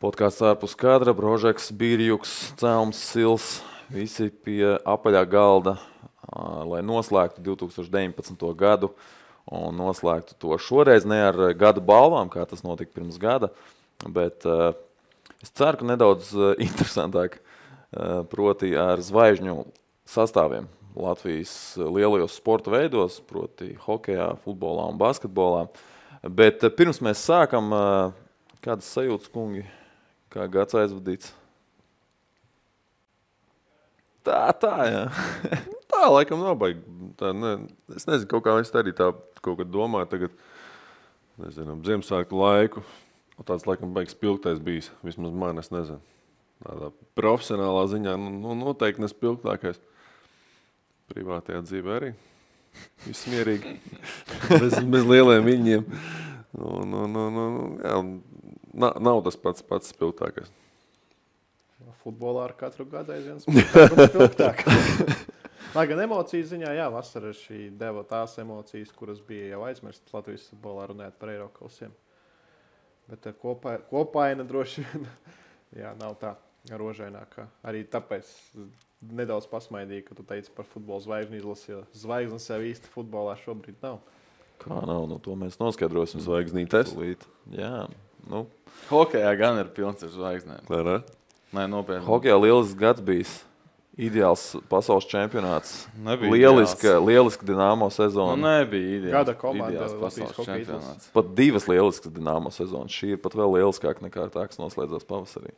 Podkāsts ārpus kadra, Brožeks, Bīrjuks, Celms, Sils, visi pie apaļā galda, lai noslēgtu 2019. gadu un noslēgtu to šoreiz ne ar gada balvām, kā tas notika pirms gada, bet es ceru, ka nedaudz interesantāk, proti ar zvaigžņu sastāviem Latvijas lielajos sporta veidos, proti hokejā, futbolā un basketbolā. Bet pirms mēs sākam, kādas sajūtas, kungi, kā gads aizvadīts? Tā, jā. Tā, laikam nav baigi. Es nezinu, kaut kā es arī tā kaut kad domāju tagad, nezinu, Ziemassvētku laiku. Tāds laikam baigs spilgtais bijis, vismaz man, es nezinu. Tādā profesionālā ziņā, noteikti nespilgtākais. Privātajā dzīvē arī. Viss mierīgi. bez lieliem viņiem. Jā, nav tas pats spilgtākais. Futbolā ar katru gadu aizvien spilgtāk. Lai gan emocijas ziņā, jā, vasara šī deva tās emocijas, kuras bija jau aizmirstas Latvijas futbolā runājot par Eirokausiem. Bet kopaina droši vien, jā, nav tā rožainākā. Arī tāpēc nedaudz pasmaidīju, ka tu teici par futbola zvaigžņu izlasi, jo zvaigznes jau īsti futbolā šobrīd nav. Kā nav? To mēs noskaidrosim. Zvaigznītes? Jā, Hokejā gan ir pilns ar zvaigznēm. Klārā? Nē, nopietni. Hokejā lielisks gads bijis. Ideāls pasaules čempionāts. Nebija Lieliska Dinamo sezona. Nebija ideāls. Gada komanda ideāls Latvijas pasaules hokeja čempionāts. Pat divas lieliskas Dinamo sezonas. Šī ir pat vēl lieliskāka nekā tā, kas noslēdzās pavasarī.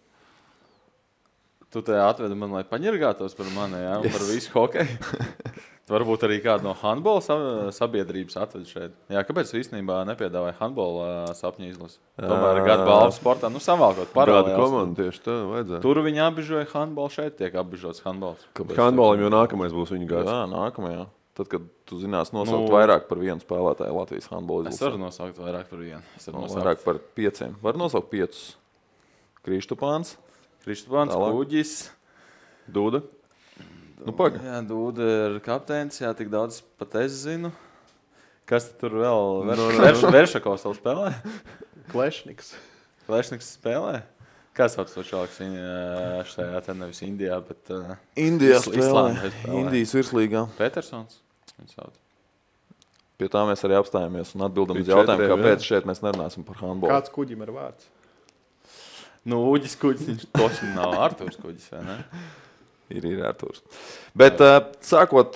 Tu te atvedi man, lai paņirgātos par mani, jā, un par visu hokeju. Varbūt arī kādu no handbola sabiedrības atvedi šeit. Jā, kāpēc īstenībā nepiedāvāja handbola sapņu izlasi? Tomēr gada balvu sportā, savalkot paralēli. Gada komanda tieši tā vajadzētu. Tur viņi apbižoja handbolu, šeit tiek apbižots handbols. Handbolam jau nākamais būs viņa gads. Jā, nākamajā. Tad, kad tu zinās nosaukt vairāk par vienu spēlētāju Latvijas handbola izlasē. Es varu nosaukt vairāk par vienu. Vairāk par 5. Var nosaukt 5. Kristupāns. Kristupāns, Kuģis. Dūda. Paga. Jā, Dūda ir kapteinis, jā, tik daudz pat es zinu. Kas tur vēl? Veršakovs vēl spēlē? Klešniks. Klešniks spēlē? Kā sauc to čalaks šajā te nevis Indijā, bet Indijā spēlē. spēlē. Indijas virslīgā. Petersons? Viņu sauc. Pie tā mēs arī apstājamies un atbildam uz Pie jautājumu, četriem, kāpēc šeit mēs nerunāsim par handbolu. Kāds Kuģim ir vārds? Uģis Kuģis, viņš toši nav Arturs Kuģis, vai ne? Ir Arturs. Bet sākot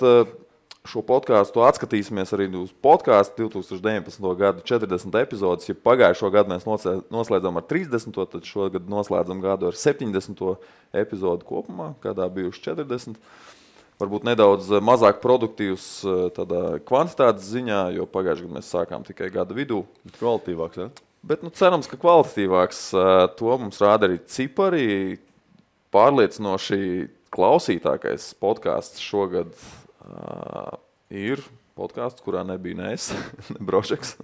šo podkāstu, atskatīsimies arī uz podkāstu 2019. gadu 40 epizodes. Ja pagājušo gadu mēs noslēdzam ar 30, tad šogad noslēdzam gadu ar 70 epizodu kopumā, kādā bijuši 40. Varbūt nedaudz mazāk produktīvs tādā kvantitātes ziņā, jo pagājušajā gadā mēs sākām tikai gada vidū. Kvalitīvāks, ja? Bet cerams, ka kvalitatīvāks. To mums rāda arī cipari. Pārliecinoši klausītākais podkāsts šogad ir podkāsts, kurā nebija ne es, ne Brožeks,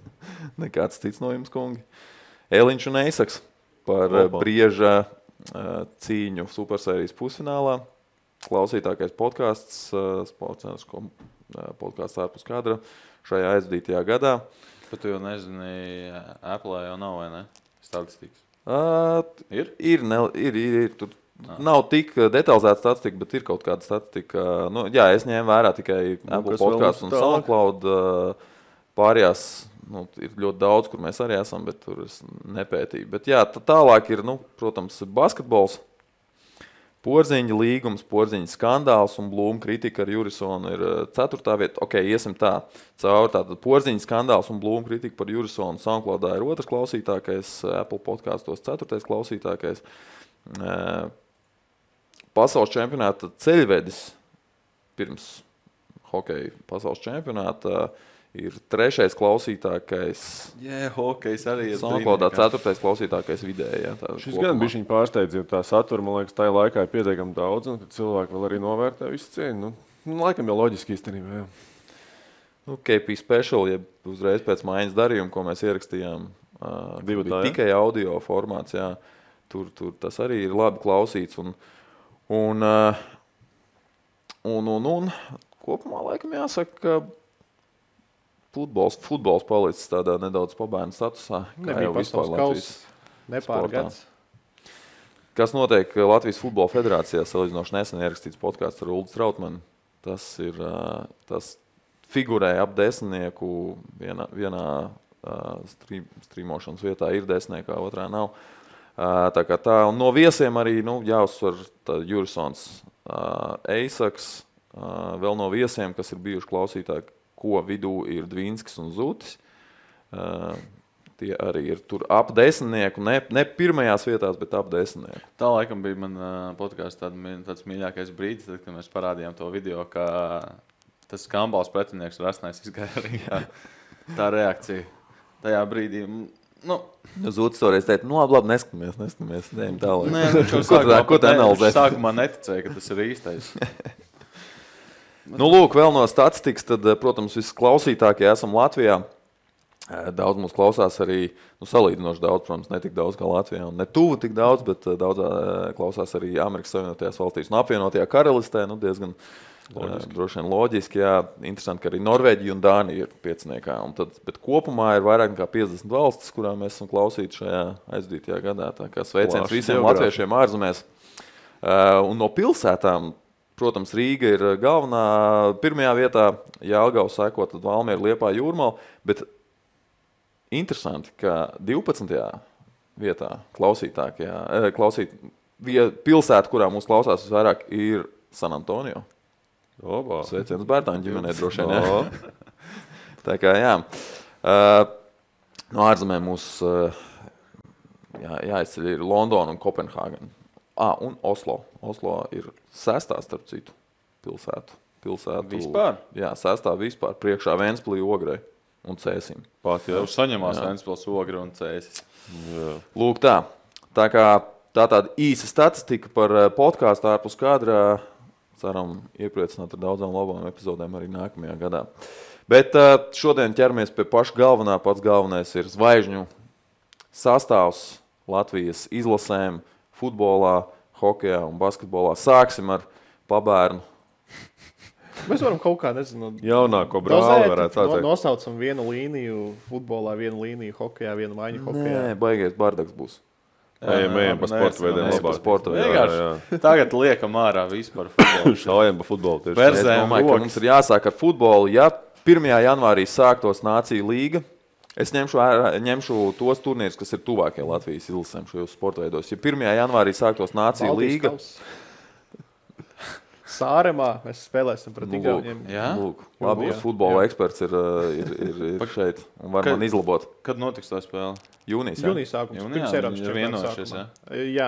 nekāds cits no jums, kungi. Eliņš un Eisaks par Brieža cīņu supersērijas pusfinālā. Klausītākais podkāsts, podkāsts ārpus kadra šajā aizvadītajā gadā. Bet tu jau nezini, Apple jau nav, vai ne? Statistikas. Ir? Ir. Tur nav tik detalizēta statistika, bet ir kaut kāda statistika. Jā, es ņēmu vērā tikai Apple podcasts un SoundCloud. Pārējās ir ļoti daudz, kur mēs arī esam, bet tur es nepētīju. Bet jā, tālāk ir, protams, basketbols. Porziņa līgums, Porziņa skandāls un Blūma kritika ar Jurisonu ir 4. vieta. Ok, iesim tā. Caur tātad Porziņa skandāls un Blūma kritika par Jurisonu SoundCloudā ir 2. klausītākais, Apple podkastos 4. klausītākais. Pasaules čempionāta ceļvedis pirms hokeja pasaules čempionāta ir 3. klausītākais. Jā, hokejs arī ir. SoundCloudā 4. klausītākais vidēji. Šis gan bišķiņ pārsteidz, jo tā satura, man liekas, tajā laikā ir pietiekami daudz, un cilvēki vēl arī novērtē visu cieņu. Laikam jau loģiski īstenībā, jā. KP Special, ja uzreiz pēc maiņas darījuma, ko mēs ierakstījām, bija tikai audio formāts, jā. Tur tas arī ir labi klausīts. Un kopumā laikam jāsaka, ka futbols palicis tādā nedaudz pabērnu statusā. Nebija pasaules kausa, nepārgads. kas notiek Latvijas Futbola Federācijā, salīdzinoši nesen ierakstīts podkāsts ar Uldu Strautmanu. Tas figurē ap 10. Vienā strīmošanas vietā ir 10, otrā nav. Tā, un no viesiem arī jāuzsver Jurisons Eisaks, vēl no viesiem, kas ir bijuši klausītāji, ko vidū ir Dvīnskis un Zutis. Tie arī ir tur ap 10, ne pirmajās vietās, bet ap 10. Tā laikam bija man podkāstā tāds mīļākais brīdis, tad, kad mēs parādījām to video, ka tas skambals pretinieks Rasnais izgāja arī tā reakcija. Tajā brīdī, Zutis toreiz teica, labi, neskamies, neejam tālāk. Nē, ko tu analizē? Sākumā neticēja, ka tas ir īstais. Lūk, vēl no statistikas, tad, protams, visklausītākie esam Latvijā. Daudz mūs klausās arī, salīdzinoši daudz, protams, ne tik daudz kā Latvijā, un ne tuvu tik daudz, bet daudz klausās arī Amerikas Savienotajās valstīs un apvienotajā karalistē, diezgan droši vien loģiski, jā, interesanti, ka arī Norvēģija un Dānija ir pieciniekā, bet kopumā ir vairāk nekā 50 valstis, kurām mēs esam klausīti šajā aizdītajā gadā, tā kā sveiciens visiem latviešiem ārzemēs. Un no pilsētām, protams, Rīga ir galvenā pirmajā vietā, Jelgava seko, tad Valmiera, Liepāja, Jūrmala, bet interesanti, ka 12. vietā pilsēta, kurā mūs klausās visvairāk, ir San Antonio. Sveiciens Bērtāņu ģimenei droši vien. Tā kā, jā. No ārzemēm mūs jāizceļ ir Londona un Kopenhāgena. Un Oslo. Oslo ir 6. starp citu pilsētu. Vispār? Jā, 6. vispār. Priekšā Ventspilī, Ogrei un Cēsim. Jau saņemās Ventspils, Ogre un Cēsis. Lūk tā. Tā kā tāda īsa statistika par podkāstu ārpus kadra. Ceram iepriecināt ar daudzām labām epizodēm arī nākamajā gadā. Bet šodien ķeramies pie paša galvenā. Pats galvenais ir zvaigžņu sastāvs Latvijas izlasēm, futbolā, hokejā un basketbolā. Sāksim ar pabērnu. Mēs varam kaut kā, nezinu, jaunāko brāli varētu tā teikt. Nosaucam vienu līniju futbolā, vienu līniju hokejā, vienu maiņu hokejā. Nē, baigies bardaks būs. Ejam pa sporta veidiem labāk. Tagad liekam ārā vispār futbolu. Šaujam pa futbolu tieši. Es domāju, ka mums ir jāsāk ar futbolu. Ja 1. janvārī sāktos Nāciju līga, es ņemšu tos turnīrus, kas ir tuvākie Latvijas izlasēm šajos sporta veidos. Ja 1. janvārī sāktos Nāciju līga, Sāremā mēs spēlēsim pret Igauniem. Lūk, labi, futbola eksperts ir šeit un var man izlabot. Kad notiks tā spēle? Jūnijas sākums. Pirms Eiropas čempionāta sākumā. Jā,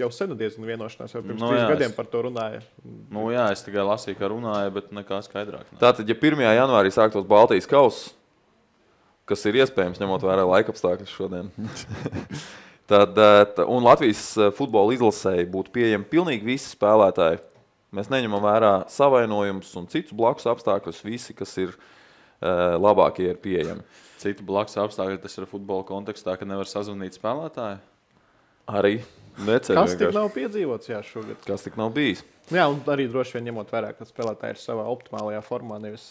jau senu diezgan vienošanās, jau pirms 3 gadiem par to runāja. Es tikai lasīju, ka runāja, bet nekā skaidrāk. Tātad, ja 1. janvārī sāktos Baltijas kauss, kas ir iespējams, ņemot vērā laikapstākļus šodien, un Latvijas futbola izlasēji būtu pieejami pilnīgi visi spēlētāji. Mēs neņemam vērā savainojumus un citus blakus apstākļus. Visi, kas ir labākie, ir pieejami. Citu blakus apstākļi, tas ir futbola kontekstā, ka nevar sazvanīt spēlētāju? Arī. Kas tik nav piedzīvots šogad? Kas tik nav bijis? Jā, un arī droši vien ņemot vērā, ka spēlētāji ir savā optimālajā formā, nevis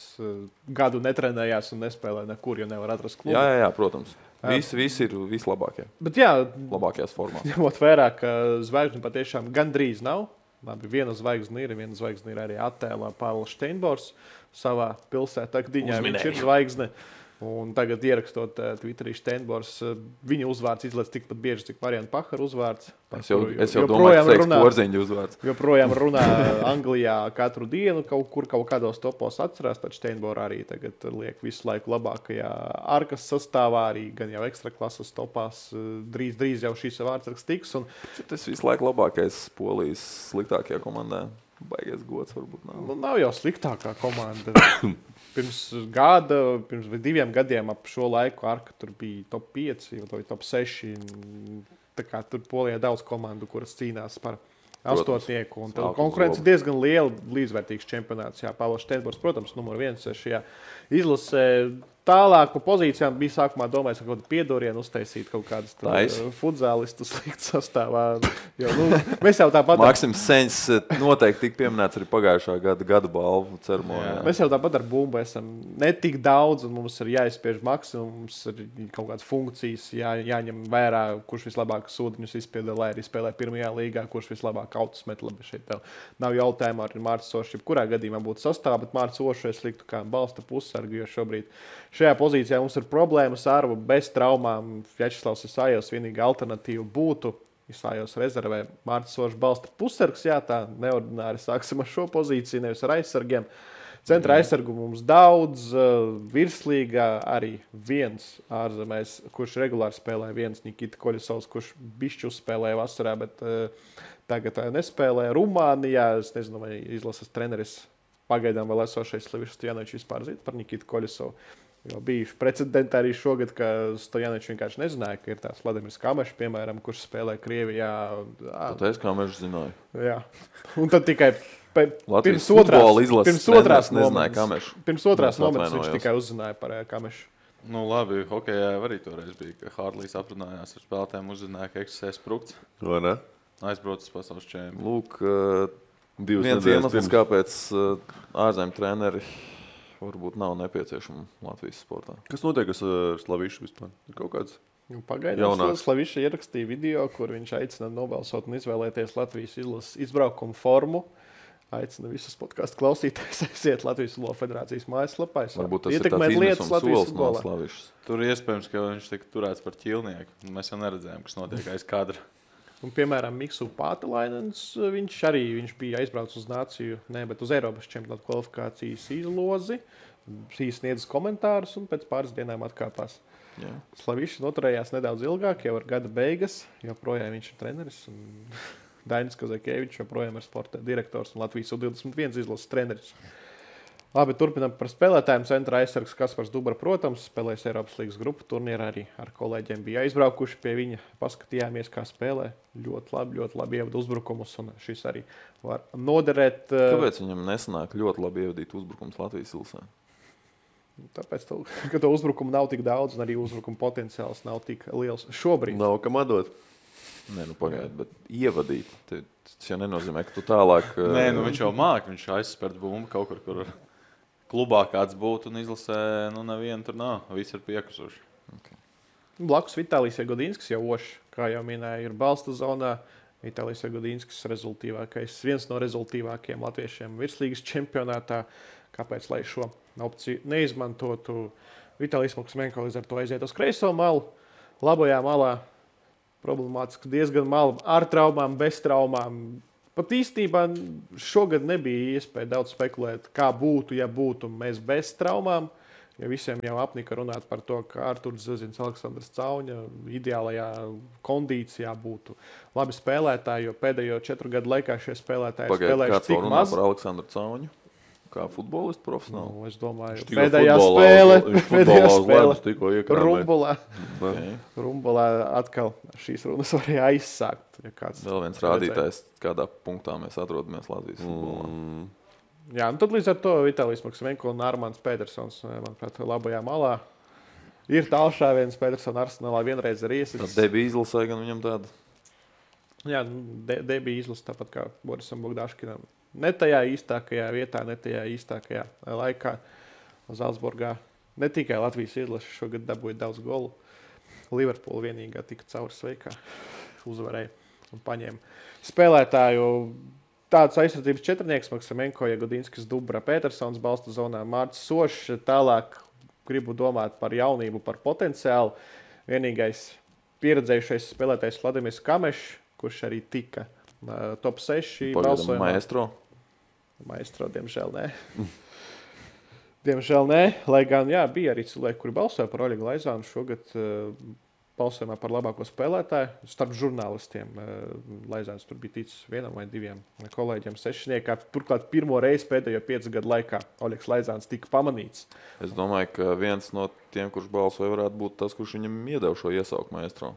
gadu netrenējās un nespēlē nekur, jo nevar atrast klubu. Jā, protams. Visi ir vislabākie. Bet labākajās formās. Ņemot vērā, ka zvaigžņu patiešām gandrīz nav. Labi, viena zvaigzne ir arī attēlā Pāvils Steinbors savā pilsētā Gdiņā. Viņš ir zvaigzne. Un tagad ierakstot Twitterī Steinbors, viņa uzvārds izlaiž tikpat bieži, cik Mariana Pahara uzvārds. Es jau domāju, ka teiks Porziņģa uzvārds. Joprojām runā Anglijā katru dienu, kaut kādos topos atcerās, tad Steinbora arī tagad liek visu laiku labākajā ārkas sastāvā, arī gan jau ekstraklases topās. Drīz jau šīs vārdsargs tiks. Tas visu laiku labākais Polijas sliktākajā komandā. Baigies gods varbūt nav. Nav jau sliktākā komanda. Pirms 2 gadiem ap šo laiku Arka tur bija top 5 vai top 6. Tā kā tur Polijā daudz komandu, kuras cīnās par astotnieku. Un konkurence diezgan liela, līdzvērtīgs čempionāts. Jā, Pāvils Steinbors, protams, numur 1 šajā izlasē. Tālāk pa pozīcijām bija sākumā domājis, ka kaut kādu piedorienu uztaisīt kaut kādus futzālistus likt sastāvā. Jo, mēs jau tāpat... Maksims Seņs noteikti tika pieminēts arī pagājušā gada balvu ceremonijā. Mēs jau tāpat ar bumbu esam ne tik daudz, un mums ir jāizspiež maksimums, ir kaut kādas funkcijas, jāņem vērā, kurš vislabāk sūdiņus izpilda, lai arī spēlē pirmajā līgā, kurš vislabāk autus met. Labi, šeit nav jautājumu ar Mārcis Ošu, kurā gadījumā būtu sastāvā, bet Mārcis Ošu es liktu kā balsta pussargu, jo šobrīd šajā pozīcijā mums ir problēmas ar bez traumām. Vjačeslavs Isājos vienīgā alternatīva būtu Isājos rezervē Mārcis Ošs balsta pussargs. Jā, tā neordināri sāksim ar šo pozīciju, nevis ar aizsargiem. Centra aizsargu mums daudz, virslīgā arī viens ārzemēs, kurš regulāri spēlē, viens Nikita Koļisovs, kurš bišķi uzspēlēja vasarā, bet tagad nespēlē. Rumānijā, es nezinu, vai izlases treneris pagaidām vēl esošais Slavišs Stojanovičs vispār zina par Nikitu Koļisovu. Jo bijuši precedenti arī šogad, ka Stojanovičs vienkārši nezināja, ka ir tāds Vladimirs Kamešs, piemēram, kurš spēlē Krievijā. Tāpēc Kamešs zināja. Jā. Un tad tikai Latvijas pirms otrās momentus viņš tikai uzzināja par Kamešu. Nu, labi, hokejā arī toreiz bija, ka Hārlīs aprunājās ar spēlētājiem, uzzināja, ka eksistē sprukts. Vai ne? Aizbraucis pasaules čempionu. Lūk, viens iemesls, kāpēc ārzemju treneri varbūt nav nepieciešama Latvijas sportā. Kas notiek ar Slavišu vispār? Kaut kāds Pagaidām Slaviša ierakstīja video, kur viņš aicina nobalsot un izvēlēties Latvijas izlases izbraukumu formu. Aicina visus podcastu klausītājus aiziet Latvijas Futbola federācijas mājaslapā. Varbūt tas ir tāds izmisums solis no Slavišas. Tur iespējams, ka viņš tika turēts par ķilnieku. Mēs jau neredzējām, kas notiek aiz kadra. Un, piemēram, Miksu Pātelainens, viņš bija aizbraucis uz nāciju, bet uz Eiropas čempionāta kvalifikācijas izlozi, sniedz komentārus un pēc pāris dienām atkāpās. Jā. Slavišs noturējās nedaudz ilgāk, jau ar gada beigas, joprojām viņš ir treneris. Dainis Kazakēvičs joprojām ir sporta direktors un Latvijas U21 izlases treneris. Labi, turpinām par spēlētājiem. Centra aizsargs Kaspars Dubra, protams, spēlēs Eiropas līgas grupu turnīrā, arī ar kolēģiem bija aizbraukuši pie viņa. Paskatījāmies, kā spēlē. Ļoti labi ievada uzbrukumus, un šis arī var noderēt. Kāpēc viņam nesanāk ļoti labi ievadīt uzbrukums Latvijas ilsē? Tāpēc, ka to uzbrukumu nav tik daudz, un arī uzbrukuma potenciāls nav tik liels šobrīd. Nav kam atdot. Nē, pagaidi, bet ievadīt. Tas jau nenozīmē, ka tu tālāk... Nē, viņš jau māk, viņš aizspērt bumbu kaut kur klubā kāds būtu un izlasē, nevienu tur nav. Visi ir piekusuši. Okay. Blakus Vitālijs Jagodinskis jau oši, kā jau minēja, ir balsta zonā. Vitālijs Jagodinskis viens no rezultīvākajiem latviešiem virslīgas čempionātā. Kāpēc, lai šo opciju neizmantotu? Vitālijs Maksmenko līdz ar to aiziet uz kreiso malu. Labajā malā problemātiski diezgan malu ar traumām, bez traumām. Pat īstenībā šogad nebija iespēja daudz spekulēt, kā būtu, ja būtu mēs bez traumām. Ja visiem jau apnika runāt par to, ka Arturs Zazins, Aleksandrs Cauņa ideālajā kondīcijā būtu labi spēlētāji, jo pēdējo 4 gadu laikā šie spēlētāji spēlējuši cik maz. Par Aleksandru Cauņu? Kā futbolistu profesionāli? Es domāju, pēdējā spēle Rumbulā. Okay. Rumbulā atkal šīs runas varēja aizsākt. Ja vēl viens rādītājs, kādā punktā mēs atrodamies Latvijas futbolā. Jā, un tad līdz ar to Vitālijs Maksmenko un Armāns Pētersons, manuprāt, labajā malā. Ir tālšāviens Pētersona Arsenālā vienreiz ir iesits. Tad debija izlasē gan viņam tāda? Jā, debija izlasa tāpat kā Borisam Bogdaškinam. Ne tajā īstākajā vietā, ne tajā īstākajā laikā Zalcburgā. Ne tikai Latvijas izlase šogad dabūja daudz golu. Liverpoola vienīgā tika cauri sveikā. Uzvarēja un paņēma spēlētāju. Tāds aizsardzības četrnieks Maksamenko, Jagodinskis, Dubra, Pētersons balsta zonā, Mārcis Ošs. Tālāk gribu domāt par jaunību, par potenciālu. Vienīgais pieredzējušais spēlētājs Vladimirs Kamešs, kurš arī tika top 6 balsojumā. Maestro, diemžēl nē. Diemžēl nē, lai gan bija arī cilvēki, kuri balsoja par Oļegu Laizānu šogad balsojumā par labāko spēlētāju. Starp žurnālistiem Laizāns tur bija ticis 1 vai 2 kolēģiem sešniekā. Turklāt pirmo reizi pēdējo 5 gadu laikā Oļegs Laizāns tika pamanīts. Es domāju, ka viens no tiem, kurš balsoja, varētu būt tas, kurš viņam iedeva šo iesauku Maestro.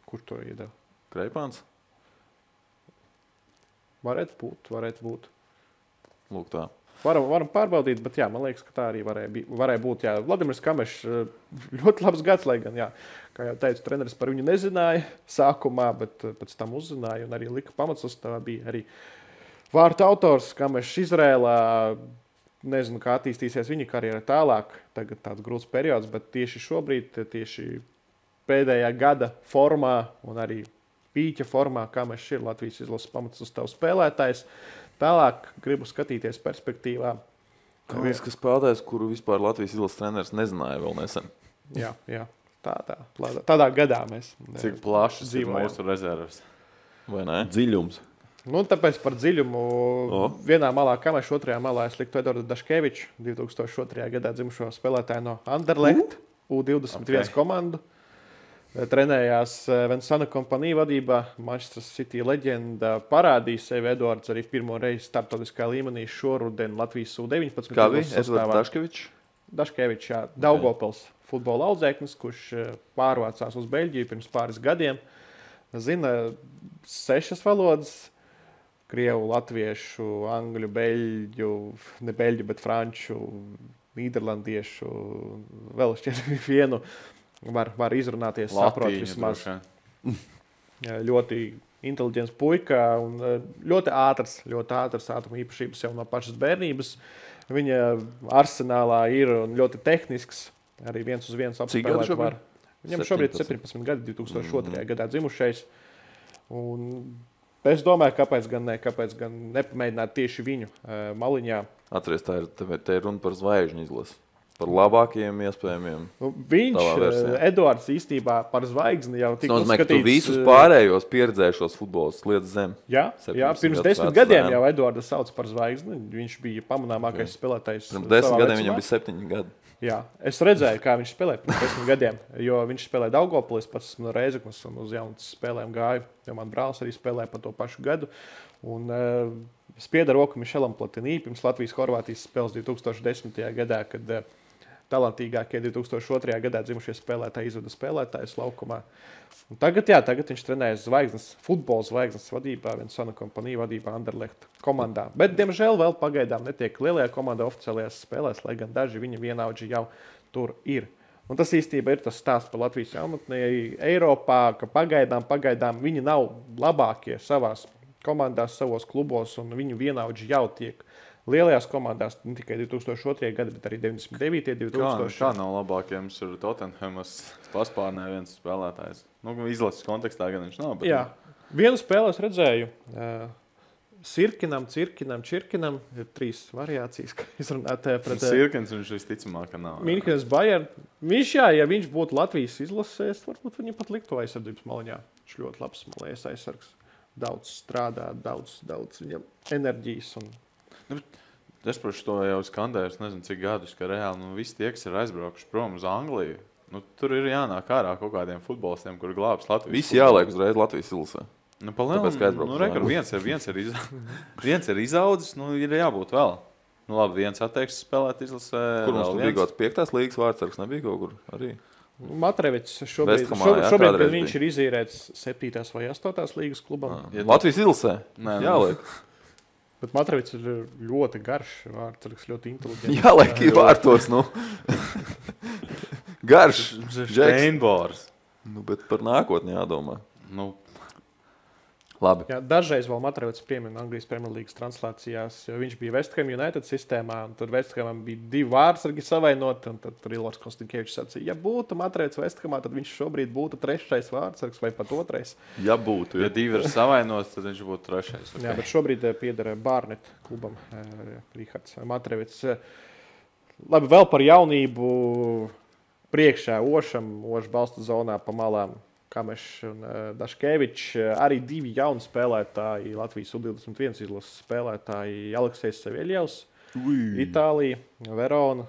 Kur to iedeva? Kreipāns? Varētu būt. Lūk tā. Varam pārbaudīt, bet jā, man liekas, ka tā arī varēja būt. Jā. Vladimirs Kamešs ļoti labs gads, lai gan, jā, kā jau teicu, treneris par viņu nezināja sākumā, bet pēc tam uzzināja un arī lika pamatsastāvā. Bija arī vārtu autors Kamešs Izrēlā. Nezinu, kā attīstīsies viņa karjera tālāk. Tagad tāds grūts periods, bet tieši šobrīd, tieši pēdējā gada formā un arī pīķa formā, Kamešs ir Latvijas izlases pamatsastāvs spēlētājs. Tālāk gribu skatīties perspektīvā. Viens, kas spēlētājs, kuru vispār Latvijas izlases treneris nezināja vēl nesen. Jā. Tādā gadā mēs Cik plašas ir dzīvojam. mūsu rezerves? Vai ne? Dziļums. Nu, tāpēc par dziļumu vienā malā Kamešs, otrajā malā es liktu Eduardu Daškeviču, 2002. gadā dzimušo spēlētāju no Anderlecht, U21 komandu. Trenējās Vinsana kompanija vadībā. Manchester City leģenda parādīja sevi. Eduards arī pirmo reizi starptautiskā līmenī šoruden Latvijas U19. Kā bija? Eduards Daškevičs? Daškevičs, jā. Daugavpils futbola audzēknis, kurš pārvācās uz Beļģiju pirms pāris gadiem. Zina 6 valodas. Krievu, latviešu, angļu, beļģu, ne beļģu, bet franču, nīderlandiešu, vēl šķiet vienu. Var izrunāties, saprot vismaz. Ļoti inteliģents puika un ļoti ātrs ātruma īpašības jau no pašas bērnības. Viņa arsenālā ir un ļoti tehnisks, arī 1-uz-1 apspēlēt var. Viņam šobrīd 17 gadi, 2002. Gadā dzimušais. Un es domāju, kāpēc gan nepamēģināt tieši viņu maliņā. Atceries, te ir runa par zvaigžņu izlasi. Par labākajiem iespējamiem. Viņš, Eduards, īstībā par zvaigzni jau tika uzskatīts. Tu uzskatīts. visus pārējos pieredzējušos futbols liec zem. Jā, pirms 10 gadiem jau Eduardu sauc par zvaigzni. Viņš bija pamanāmākais spēlētājs. Pirms 10 gadiem viņam bija 7 gadi. Jā, es redzēju, kā viņš spēlēja pirms 10 gadiem, jo viņš spēlēja Daugavpilī, pats no Reizeknas un uz jaunas spēlēm gāju, jo man brālis arī spēlēja pa to pašu gadu. Un spieda roku Mišelam Platinī pirms Latvijas-Horvātijas spēles 2010. gadā, kad talantīgākie 2002. gadā dzimušie spēlētāji izveda spēlētājus laukumā. Un tagad viņš trenējas futbola zvaigznes vadībā, Vinsana kompanija vadībā Anderlecht komandā. Bet, diemžēl, vēl pagaidām netiek lielajā komandā oficiālajās spēlēs, lai gan daži viņa vienaudži jau tur ir. Un tas īstenībā ir tas stāsts par Latvijas jaunatnē Eiropā, ka pagaidām viņi nav labākie savās komandās, savos klubos, un viņu vienaudži jau tiek lielajās komandās, ne tikai 2002. gada, bet arī 99. 2000. Kā nav labākie? Mums ir Tottenhamas paspārnē viens spēlētājs. Nu, izlases kontekstā gan viņš nav. Bet... Jā. Vienu spēlē es redzēju. Sirkinam, Čirkinam. Ir 3 variācijas, kā izrunāt pret... Sirkins viņš visticamāk, ka nav. Minhenes Bayern. Viņš, ja viņš būtu Latvijas izlasēs, varbūt viņam pat liktu aizsardzības maliņā. Viņš ļoti labs malējas aizsargs. Daudz strādā, daudz viņam enerģijas un... Es par to jau skandēju, es nezinu, cik gadus, ka reāli visi tie, kas ir aizbraukuši prom uz Angliju, tur ir jānāk ārā kaut kādiem futbolistiem, kuri glābs Latvijas. Visi jāliek uzreiz Latvijas izlasē. Viens ir izaudzis, ir jābūt vēl. Labi, viens atteiks spēlēt izlasē. Kur mums tur bija kaut kāds 5. līgas vārdsargs, nebija kaut kur arī? Matrevits šobrīd kad viņš ir izīrēts 7. vai 8. līgas klubam. Latvijas izlasē? Jāliek. Bet Matrevits ir ļoti garš vārdsargs, ļoti inteliģents. Jāliek vārtos, Garš. Steinbors. Bet par nākotni jādomā. Labi. Jā, dažreiz vēl Matrevits piemina Anglijas Premjerlīgas translācijās, jo viņš bija West Ham United sistēmā, un tur West Hamam bija 2 vārdsargi savainoti, un tad Ilors Konstinkievičs sacīja, ja būtu Matrevits West Hamā, tad viņš šobrīd būtu 3. vārdsargs vai pat 2. Ja būtu. Ja 2 ir savainots, tad viņš būtu 3. Okay. Jā, bet šobrīd pieder Barnet klubam Rihards Matrevits. Labi, vēl par jaunību priekšā Ošs balsta zonā pa malām. Kamešs un Daškevičs, arī 2 jauni spēlētāji, Latvijas U21 izlases spēlētāji, Aleksejs Saviļjevs, Itālija, Verona.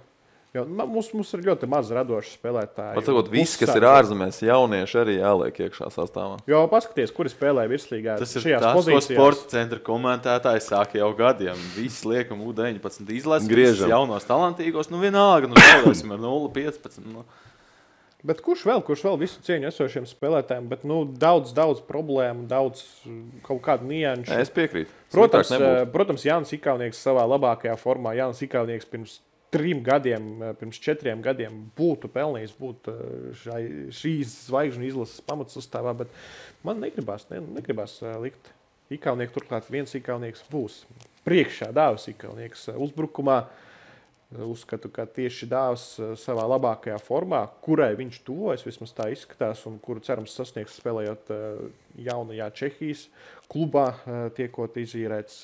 Jo, mums ir ļoti maz radoši spēlētāji. Patsakot, viss, kas ir ārzemēs, jaunieši arī jāliek iekšā sastāvā. Jo paskaties, kuri spēlē virslīgā šajās pozīcijās. Tas ir tas, ko sporta centra komentētāji sāka jau gadiem. Visi liekam U19 izlases, visus jaunos talantīgos, vienalga, zaudēsim ar 0-15. Bet kurš vēl visu cieņu esošiem spēlētājiem, bet daudz problēmu, daudz kaut kādu nianšu. Es piekrītu. Protams, Jānis Ikaunieks savā labākajā formā. Jānis Ikaunieks pirms 3 gadiem, pirms 4 gadiem būtu pelnījis būt šīs zvaigžņu izlases pamatsastāvā, bet man negribas likt Ikaunieku. Turklāt viens Ikaunieks būs priekšā, Dāvis Ikaunieks uzbrukumā. Uzskatu, ka tieši Dāvis savā labākajā formā, kurai viņš tuvojas, vismaz tā izskatās, un kuru cerams sasniegs spēlējot jaunajā Čehijas klubā, tiekot izīrēts,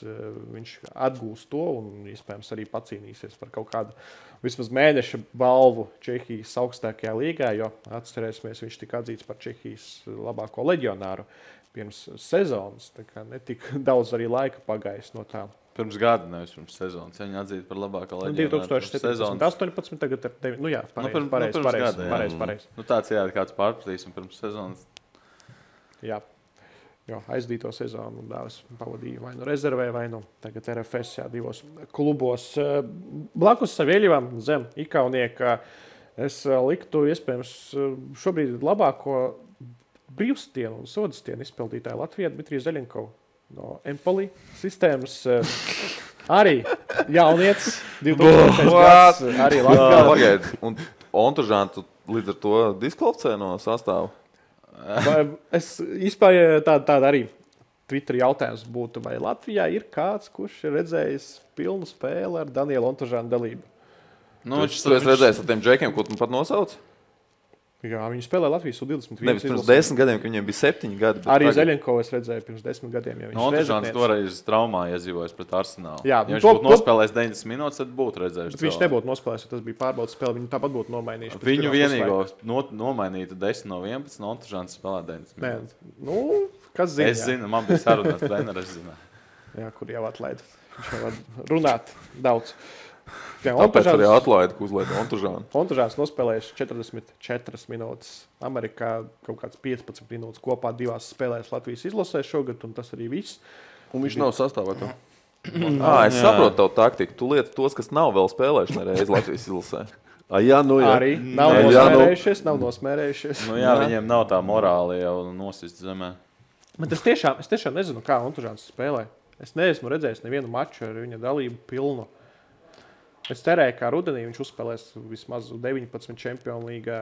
viņš atgūst to un iespējams arī pacīnīsies par kaut kādu vismaz mēneša balvu Čehijas augstākajā līgā, jo atcerēsimies, viņš tika atzīts par Čehijas labāko leģionāru pirms sezonas, tā kā netik daudz arī laika pagājis no tā. Pirms gada, nevis pirms sezonas. Viņa atzīta par labāko leģionāru. 2017, 18, tagad ir 9. Nu jā, pareizi. Nu tāds kāds pārpratīs un pirms sezonas. Jā, jo aizdīto sezonu Dāvis pavadīja vai nu rezervē, vai nu tagad RFS, jā, 2 klubos. Blakus Savieļevam zem Ikaunieka es liktu iespējams šobrīd labāko brīvstienu un sodastienu izpildītāju Latvijā Dmitriju Zeļenkovu. No Empoli sistēmas arī jaunietis, 2000 gads, arī Latvijā. Un Ontužānu līdz ar to diskvalificē no sastāvu? Es izpāju tādu arī Twitter jautājums būtu, vai Latvijā ir kāds, kurš ir redzējis pilnu spēli ar Danielu Ontužānu dalību? Nu, tu esi redzējis ar tiem džekiem, ko tu pat nosauc? Jā, viņi spēlē Latvijas U21. Nevis pirms 10 gadiem, kad viņiem bija 7 gadi. Arī Zeļenkovu es redzēju pirms 10 gadiem. Ja Ontužāns toreiz traumā iedzīvojas pret Arsenālu. Jā, ja viņš būtu nospēlējis 90 minūtes, tad būtu redzējuši. Viņš nebūtu nospēlējis, jo tas bija pārbaudas spēle. Viņi tāpat būtu nomainījuši. Viņu vienīgo nomainītu 10 no 11, un Ontužāns spēlē 90 minūtes. Nu, kas zina? Es zinu, man bija sarunāt treneris, es zinu. Jā, kur jau atlaida. Viņš jau var runāt daudz. Tāpēc arī atlaida, ka uzlaida Ontužānu. Ontužāns nospēlējuši 44 minūtes. Amerikā kaut kāds 15 minūtes kopā 2 spēlēs Latvijas izlasē šogad, un tas arī viss. Un viņš nav sastāvā. Es saprotu tavu taktiku. Tu lieti tos, kas nav vēl spēlējuši nereiz Latvijas izlasē. Jā, nu jā. Arī nav nosmērējušies. Nu jā, viņiem nav tā morāli jau nosist zemē. Bet es tiešām nezinu, kā Ontužāns spēlē. Es neesmu redzējis nevienu maču ar viņa dalību pilnu. Es cerēju, ka rudenī viņš uzspēlēs vismaz 19 Čempionu līgā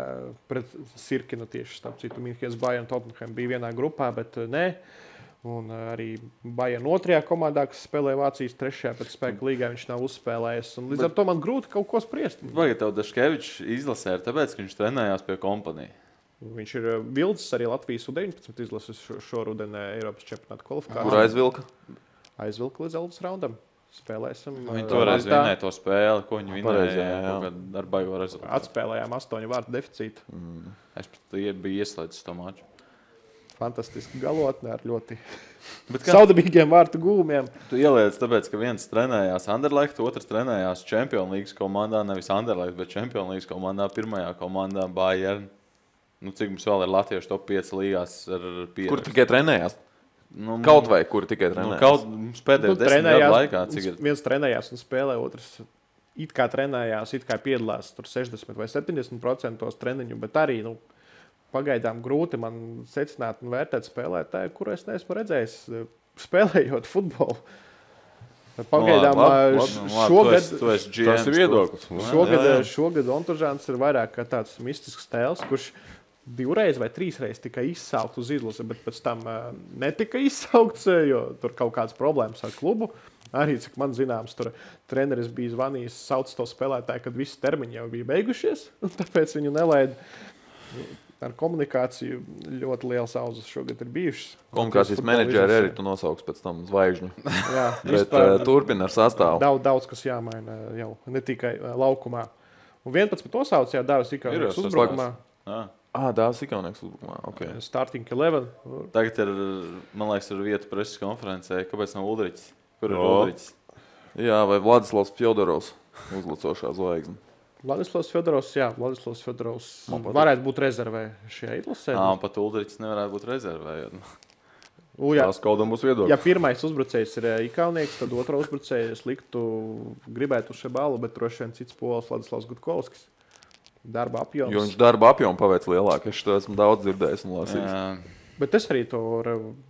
pret Sirkinu tieši, starp citu, Minhens Bayern Tottenham bija vienā grupā, bet nē. Un arī Bayern 2. komandā, kas spēlē Vācijas 3. pēc spēka līgā, viņš nav uzspēlējis. Un līdz ar to man grūti kaut ko spriest. Vajag tev Daškevičs izlasē, tāpēc, ka viņš trenējās pie kompanija. Viņš ir vilcis arī Latvijas U19 izlases šorudenē Eiropas čempionāta kvalifikācijā. Kur aizvilka? Aizvilka līdz Elvis raundam. Spēlēsim. Viņi toreiz vinēja to spēli, ko viņi vinēja ar baigo rezultātu. Atspēlējām 8 vārtu deficītu. Es biju ieslēdzis to maču. Fantastiski galotne ar ļoti saudabīgiem vārtu gūmiem. Tu ieliec tāpēc, ka viens trenējās Anderlecht, otrs trenējās Čempionu līgas komandā, nevis Anderlecht, bet Čempionu līgas komandā, pirmajā komandā Bayern. Nu, cik mums vēl ir latviešu top 5 līgās ar pierakstu? Kur tikai trenējās? Kaut vai kur tikai trenējās? Mums pēdējo 10 gadu laikā, cik ir? Viens trenējās un spēlē, otrs it kā trenējās, it kā piedalās tur 60 vai 70% treniņu, bet arī, pagaidām grūti man secināt un vērtēt spēlētāju, kuru es neesmu redzējis spēlējot futbolu. Pagaidām šogad tas ir viedoklis. Šogad Ontužāns ir vairāk kā tāds mistisks tēls, kurš 2 vai 3 reizes tika izsaukts uz izlasi, bet pēc tam netika izsaukts, jo tur kaut kādas problēmas ar klubu. Arī, cik man zināms, tur treneris bija zvanījis, sauc to spēlētāju, kad visi termiņi jau bija beigušies, un tāpēc viņu nelaida. Ar komunikāciju ļoti liels auzas šogad ir bijušas. Komunikācijas menedžeri arī tu nosauks pēc tam zvaigžņu. Jā, bet turpina ar sastāvu. Daudz kas jāmaina jau, ne tikai laukumā. Un 11 nosauc, jā, Dāvis Ikaunieks uzbrukumā. Dāvis Ikaunieks uzbrukumā, ok. Starting 11. Tagad ir, man liekas, ir vieta preses konferencē. Kāpēc nav Uldriķis? Kur ir Uldriķis? Jā, vai Vladislavs Fjodorovs uzlacošā zvaigzne. Vladislavs Fjodorovs varētu būt rezervē šajā izlasē. Pat Uldriķis nevarētu būt rezervē. Tās kaudam būs viedoklis. Ja pirmais uzbrucējs ir Ikaunieks, tad otro uzbrucēju es gribētu uz šo balu, bet droši vien cits pols Vladislavs Gutkovskis. darba apjoms. Jo viņš darba apjomu paveic lielāk. Es to esmu daudz dzirdējis un lasījis. Bet es arī to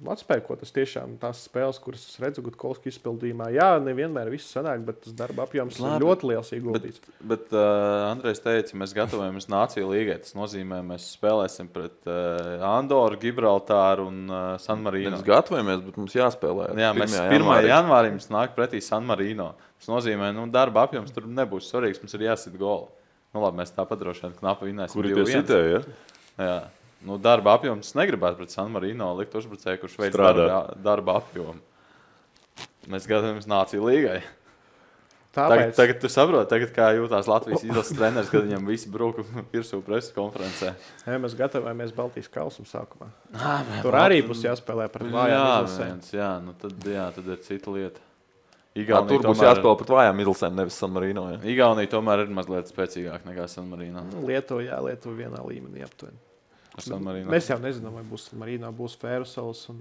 atspēju, ko tas tiešām tās spēles, kuras es redzu Gutkovski izpildījumā. Jā, nevienmēr viss sanāk, bet tas darba apjoms ir ļoti liels ieguldīts. Bet Andrejs teica, mēs gatavojamies Nāciju līgai. Tas nozīmē, mēs spēlēsim pret Andoru, Gibraltāru un San Marino. Mēs gatavojamies, bet mums jāspēlē. Jā, mēs 1. janvārī mums nāk pretī San Marino. Tas nozīmē, darba apjoms tur nebūs svarīgs, mums ir jāsit goli. Labi, mēs tāpat droši vien knapi vinnēsim. Kuri tie sitēja? Jā. Darba apjoms negribētu pret San Marino likt uzbrucēju, kurš veids darba apjomu. Mēs gatavojamies Nāciju līgai. Tagad tu saproti, kā jūtās Latvijas izlases treneris, kad viņam visi bruka virsū preses konferencē. Jā, mēs gatavojamies Baltijas kausam sākumā. Tur arī būs jāspēlē pret vājām izlasēm. Tad ir cita lieta. Tur būs jāspēlē pret vājām izlasēm, nevis San Marino. Jā. Igaunija tomēr ir mazliet spēcīgāk nekā San Marino. Lietuva vienā līmenī aptuveni. Mēs jau nezinām, vai būs San Marino, būs Fērusels un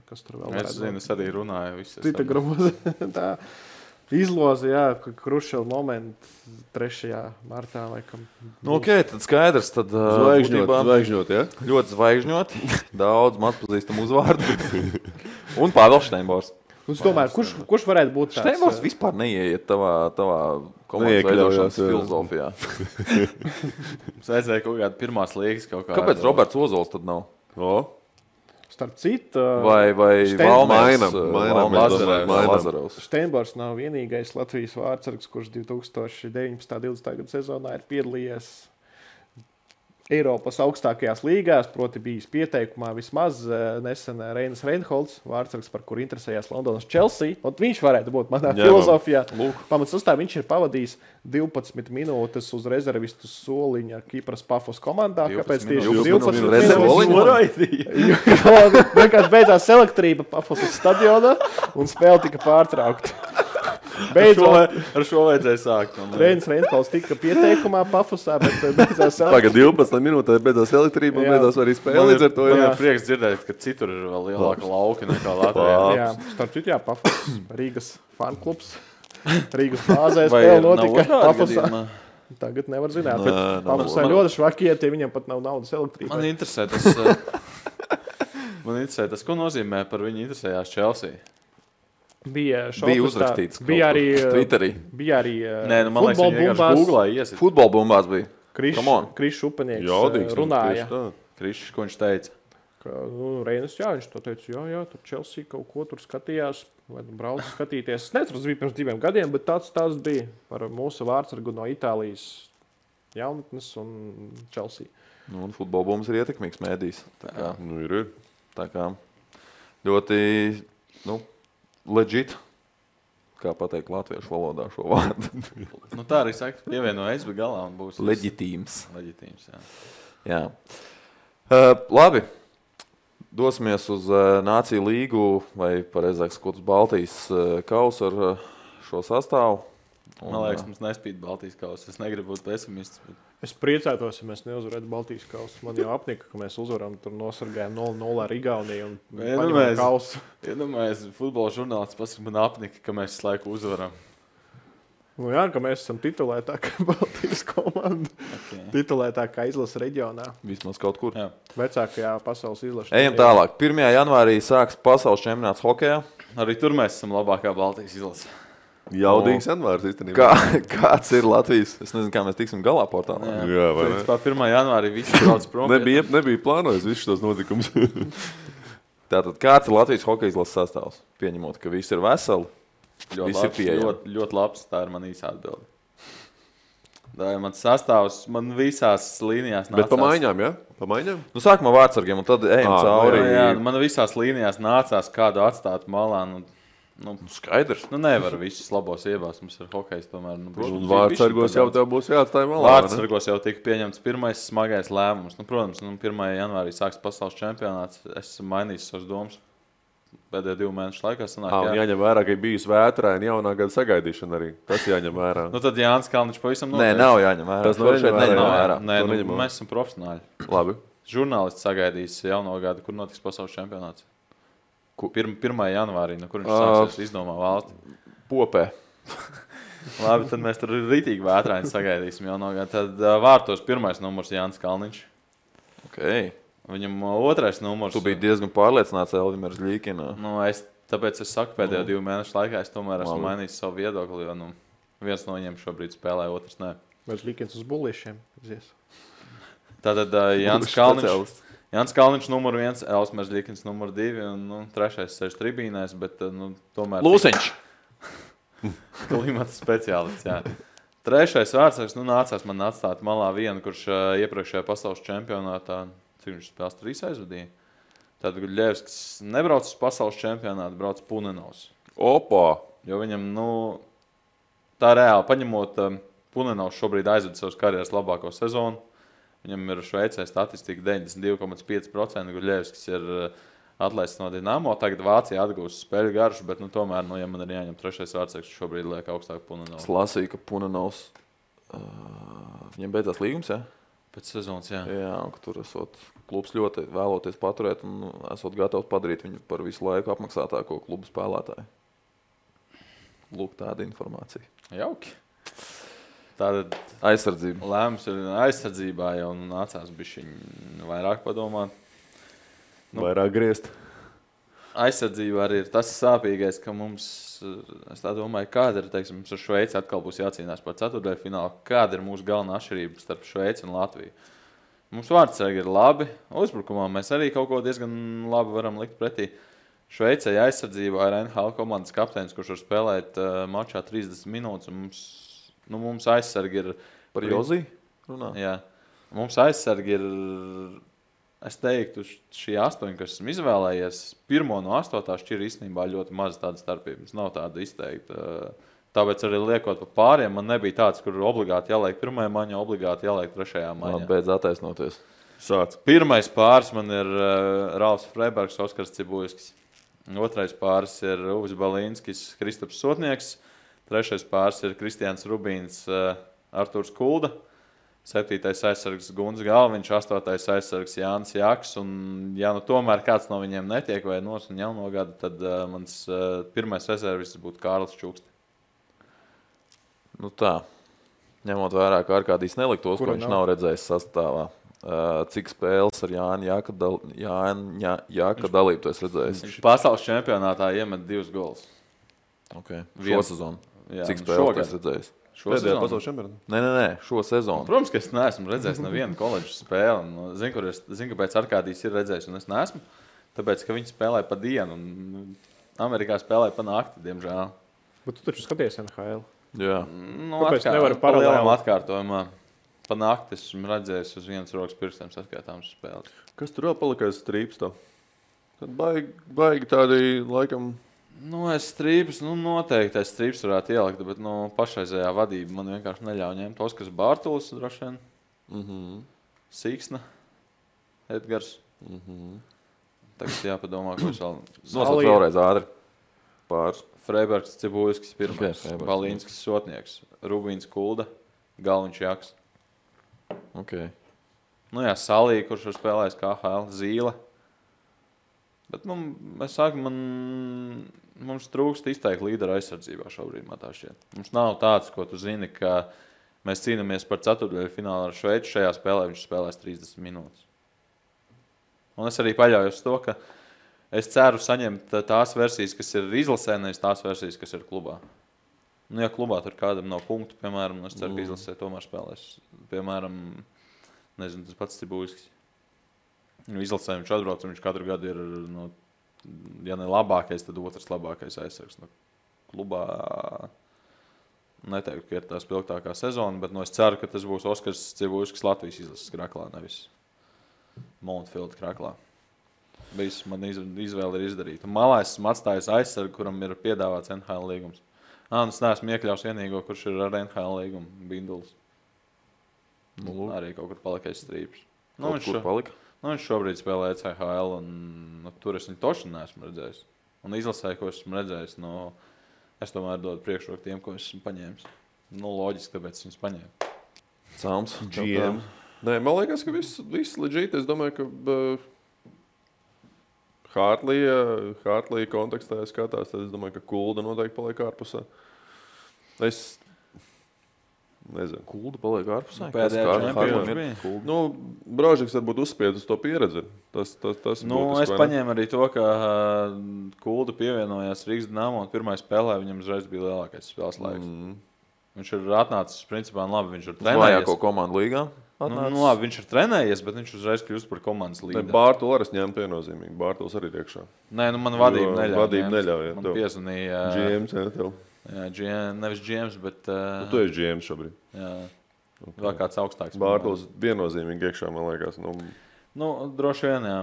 kas tur vēl varētu būt. Es arī runāju. Cita groza. Tā izloze, jā, Krušela momenti 3. martā laikam. Ok, tad skaidrs. Tad, zvaigžņot, ja? Ļoti zvaigžņot. Daudz mazpazīstam uzvārdu. Un Pāvils Šteinbors. Es domāju, kurš varētu būt tāds? Šteinbors vispār neieiet tavā komandas veidošanas filozofijā. Mums vajadzēja kaut kādu pirmās līgas kaut kādu. Kāpēc Roberts Ozols tad nav? Starp citu, vai Lazarovs. Šteinbors nav vienīgais Latvijas vārdsargs, kurš 2019.-20. gada sezonā ir piedalījies Eiropas augstākajās līgās, proti bijis pieteikumā vismaz nesen Reinas Reinholds, vārdsargs, par kuru interesējās Londonas Chelsea. Un viņš varētu būt manā filozofijā. Pamatsastāvā viņš ir pavadījis 12 minūtes uz rezervistu soliņa Kipras Pafos komandā. Kāpēc tieši 12 minūtes? Vienkārši beidzās elektrība Pafos stadionā un spēle tika pārtraukta. Ar šo vajadzēja sākt. Reinas Reinholds tika pieteikumā Pafosā, bet beidzās Tagad 12 minūtēs beidzās elektrība un beidzās arī spēle. Līdz ar to ir prieks dzirdēt, ka citur ir vēl lielāka lauka nekā Latvijā. Jā, starp citu, Pafos, Rīgas fanklubs. Rīgas bāzē spēle notika Pafosā. Tagad nevar zināt, bet Pafosā ļoti švakiet, ja viņam pat nav naudas elektrībai. Man interesē tas, ko nozīmē par viņu interesējās Chelsea. Bija uzrakstīts. Bija arī Twitterī. Bija arī man liekas, viņi vienkārši Googlā iesit. Futbola bumbās bija. Krišs Upenieks runāja. Krišs, ko viņš teica? Reinas, viņš to teica, jā, tur Chelsea kaut ko tur skatījās, vai brauc skatīties. Es nezinu, tas bija pirms 2 gadiem, bet tāds bija par mūsu vārdsargu no Itālijas jaunatnes un Chelsea. Un futbola bumbas ir ietekmīgs mēdījis. Ir. Tā kā ļoti, legit, kā pateikt latviešu valodā šo vārdu. Tā arī saka, pievienojas bez galā un būs leģitīms. Jā. Labi. Dosimies uz Nāciju līgu, vai pareizāk sakot, uz Baltijas kausu ar šo sastāvu. Man liekas, mums nespīd Baltijas kausa. Es negribu būt pesimists. Bet... Es priecātos, ja mēs neuzvarētu Baltijas kausu. Man jau apnika, ka mēs uzvaram, tur nosargājam 0-0 ar Igauniju un paņemam kausu. Iedomājies, futbola žurnālists pasaka, man apnika, ka mēs visu laiku uzvaram. Jā, ka mēs esam titulētākā Baltijas komanda. Titulētākā izlase reģionā. Vismaz kaut kur. Jā. Vecākajā pasaules izlase. Ejam tālāk. 1. janvārī sāks pasaules čempionāts hokejā. Arī tur mēs esam labākā Baltijas izlase. Jaudīgs janvārs īstenībā. Kāds ir Latvijas? Es nezinu, kā mēs tiksim galā portālā. Jā, vai ne? 1. janvārī visi brauc prom. Nebija plānojis visus šos notikumus. Tātad, kāds ir Latvijas hokeja izlases sastāvs? Pieņemot, ka visi ir veseli, visi ir pieejami. Ļoti labs, tā ir man īsa atbilde. Tā ir mans sastāvs, man visās līnijās nācās. Bet pa maiņām, ja? Pa maiņām? Sākumā vārdsargiem, un tad ejam cauri. Jā, man visās līnijās nācās kādu atstāt malā. Skaidrs. Nevar visus labos iebās. Mums ir hokejs tomēr. Un vārdsargos jau tev būs jāatstāj malā. Vārdsargos jau tika pieņemts pirmais smagais lēmums. Protams, 1. janvārī sāks pasaules čempionāts. Es esmu mainījis savas domas. Pēdējo 2 mēnešu laikā sanāk. Jāņem vērā, ka ir bijusi vētraina jaunā gada sagaidīšana arī. Tas jāņem vērā. Tad Jānis Kalniņš pavisam noteikti. Nē, nav jāņem vērā. Tas neņem vērā. Nē, mēs esam profesionāļi. Labi. Žurnālists sagaidīs jauno gadu, kur notiks pasaules čempionāts. 1. janvārī, kur viņš sāksies izdomā valsti. Popē. Labi, tad mēs tur ritīgi vētraini sagaidīsim jau no gada. Tad vārtos pirmais numurs Jānis Kalniņš. Okay. Viņam otrais numurs. Tu biji diezgan pārliecināts Elvimers Ļīkina. Tāpēc es saku, pēdējo 2 mēnešu laikā es tomēr esmu mainījis savu viedokli, jo viens no viņiem šobrīd spēlē, otrs nē. Vai Ļīkins uz bullīšiem? Tātad Jānis Kalniņš numur 1, Elvimers Ļīkins numur 2 un trešais sēž tribīnēs, bet tomēr... Lūsiņš! Klimata speciālists, jā. Trešais vārdsargs, nācās man atstāt malā vienu, kurš iepriekšējā pasaules čempionātā, cik viņš spēles 3 aizvadīja. Tad Guļevskis nebrauc uz pasaules čempionātu, brauc Punenovs. Opa! Jo viņam, tā reāli paņemot, Punenovs šobrīd aizved savas karjeras labāko sezonu. Viņam ir Šveicē statistika 92,5%, Guļevskis ir atlaists no Dinamo. Tagad Vācija atgūst spēļu garšu, bet tomēr, ja man ir jāņem trešais vārdsargs, šobrīd liek augstāk Punenovs. Es lasīju, ka Punenovs viņam beidzās līgums, jā? Pēc sezonas, jā. Jā, un ka tur esot klubs ļoti vēloties paturēt un esot gatavs padarīt viņu par visu laiku apmaksātāko klubu spēlētāju. Lūk, tāda informācija. Jauki. Tātad aizsardzība. Lēmums ir aizsardzībā jau nācās bišķiņ vairāk padomāt. Vairāk griezt. Aizsardzībā arī ir tas sāpīgais, ka mums, es tā domāju, kāda ir, teiksim, ar Šveici atkal būs jācīnās par ceturtdaļu finālu. Kāda ir mūsu galvenā atšķirība starp Šveici un Latviju? Mums vārdsargi ir labi, uzbrukumā mēs arī kaut ko diezgan labi varam likt pretī. Šveicē aizsardzībā ir NHL komandas kapteinis, kurš var spēlēt mačā 30 minūtes, un mums aizsargi ir... Par Jozī runā? Jā. Mums aizsargi ir... Es teiktu, šī 8, kas esmu izvēlējies, 1 no 8 šķir īstenībā ļoti maz tāda starpības. Nav tāda izteikta. Tāpēc arī liekot pa pāriem, man nebija tāds, kur obligāti jāliek 1. maņā, obligāti jāliek 3. maņā. Beidz attaisnoties. Sāc. Pirmais pāris man ir Ralfs Freibergs, Oskars Cibulskis. Otrais pāris ir Uvis Balīnskis, Kristaps Sotnieks. Trešais pāris ir Kristiāns Rubīns, Artūrs Kulda. 7. aizsargs Gunts Galviņš, 8. aizsargs Jānis Jaks, un ja tomēr kāds no viņiem netiek vai nos un jauno gadu, tad mans pirmais rezervists būtu Kārlis Čukste. Tā, ņemot vērā, ka Arkādijs neliktos, ko viņš nav redzējis sastāvā. Cik spēles ar Jāņa Jāka dalību tu esi redzējis? Viņš pasaules čempionātā iemet 2 golus. Okay. Šo sezonu? Jā, cik spēles tu esi redzējis? Pēdējā pasaules čempionātā? Nē, šo sezonu. Protams, ka es neesmu redzējis nevienu koledžu spēli. Zinu, kāpēc Arkādijs ir redzējis, un es neesmu. Tāpēc, ka viņi spēlē pa dienu, un Amerikā spēlē pa nakti, diemžēl. Bet tu taču skaties NHL. Jā. Kāpēc nevari paralēli? Atkārtojumā. Pa nakti esmu redzējis uz vienas rokas pirkstiem saskaitāmas spēles. Kas tur vēl palikais strīps tev? Tad baigi tādi, laikam... Es strīpus, noteikti es strīpus varētu ielikt, bet pašreizējā vadība man vienkārši neļauj ņemt. Oskars Bārtulis, droši vien. Sīksna, Edgars. Tagad jāpadomā, ko es vēl... Nosauc vēlreiz ātri. Pāris. Freibergs, Cibulskis, pirmais. Balīnskis, Sotnieks. Rubīns, Kulda, Galviņš, Jaks. Okay. Salī, kurš ir spēlējis KHL, Zīle. Bet, es saku, mums trūkst izteikti līdera aizsardzībā šobrīd, man tā šķiet. Mums nav tāds, ko tu zini, ka mēs cīnāmies par ceturtdaļu finālu ar Šveici. Šajā spēlē viņš spēlēs 30 minūtes. Un es arī paļaujos to, ka es ceru saņemt tās versijas, kas ir izlasē, nevis tās versijas, kas ir klubā. Ja klubā tur kādam nav punktu, piemēram, es ceru, ka izlasē tomēr spēlēs. Piemēram, nezinu, tas pats Cibulskis. Izlasē viņš atbrauc, un viņš katru gadu ir, ja ne labākais, tad otrs labākais aizsargs. Klubā neteiktu, ka ir tā spilgtākā sezona, bet es ceru, ka tas būs Oskars Cibulskis Latvijas izlases kraklā, nevis Montfield kraklā. Man izvēle ir izdarīta. Malā esmu atstājis aizsargu, kuram ir piedāvāts NHL līgums. Es neesmu iekļaus vienīgo, kurš ir ar NHL līgumu, Bindulis. Arī kaut kur palikais strīps. Kur palika? Viņš šobrīd spēlē ECHL, un tur es viņu toši neesmu redzējis. Un izlasē, ko esmu redzējis, es tomēr dodu priekšroku tiem, ko esmu paņēmis. Loģiski, tāpēc viņus paņēmu. Cāms. GM. Nē, man liekas, ka viss legit. Es domāju, ka Hartlija kontekstā skatās, tad es domāju, ka Kulda noteikti paliek ārpusē. Es nezinu. Kulda paliek ārpusē. Pēdējā čempionā bija. Kulda. Nu, Brožeks varbūt uzspied uz to pieredzi. Tas Nu, būtiski, es vai ne? paņēmu arī to, ka Kulda pievienojās Rīgas Dinamo un pirmajā spēlē viņam uzreiz bija lielākais spēles laiks. Viņš ir atnācis, principā, labi, viņš ir trenējies. Vajāko komandu līgā. Nu, labi, viņš ir trenējies, bet viņš uzreiz kļūst par komandas līderi. Bārtu arī ņemt viennozīmīgi. Bārtuls arī ir iekšā. Nē, nu man vadība neļauj. Vadība neļauj, jā, Man tev. piezvanīja. GMs, jā, tev. Jā, nevis GMs, bet Tu esi GMs šobrīd. jā, vēl kāds augstāks. Bārtuls viennozīmīgi iekšā, man liekas. Nu, droši vien, jā.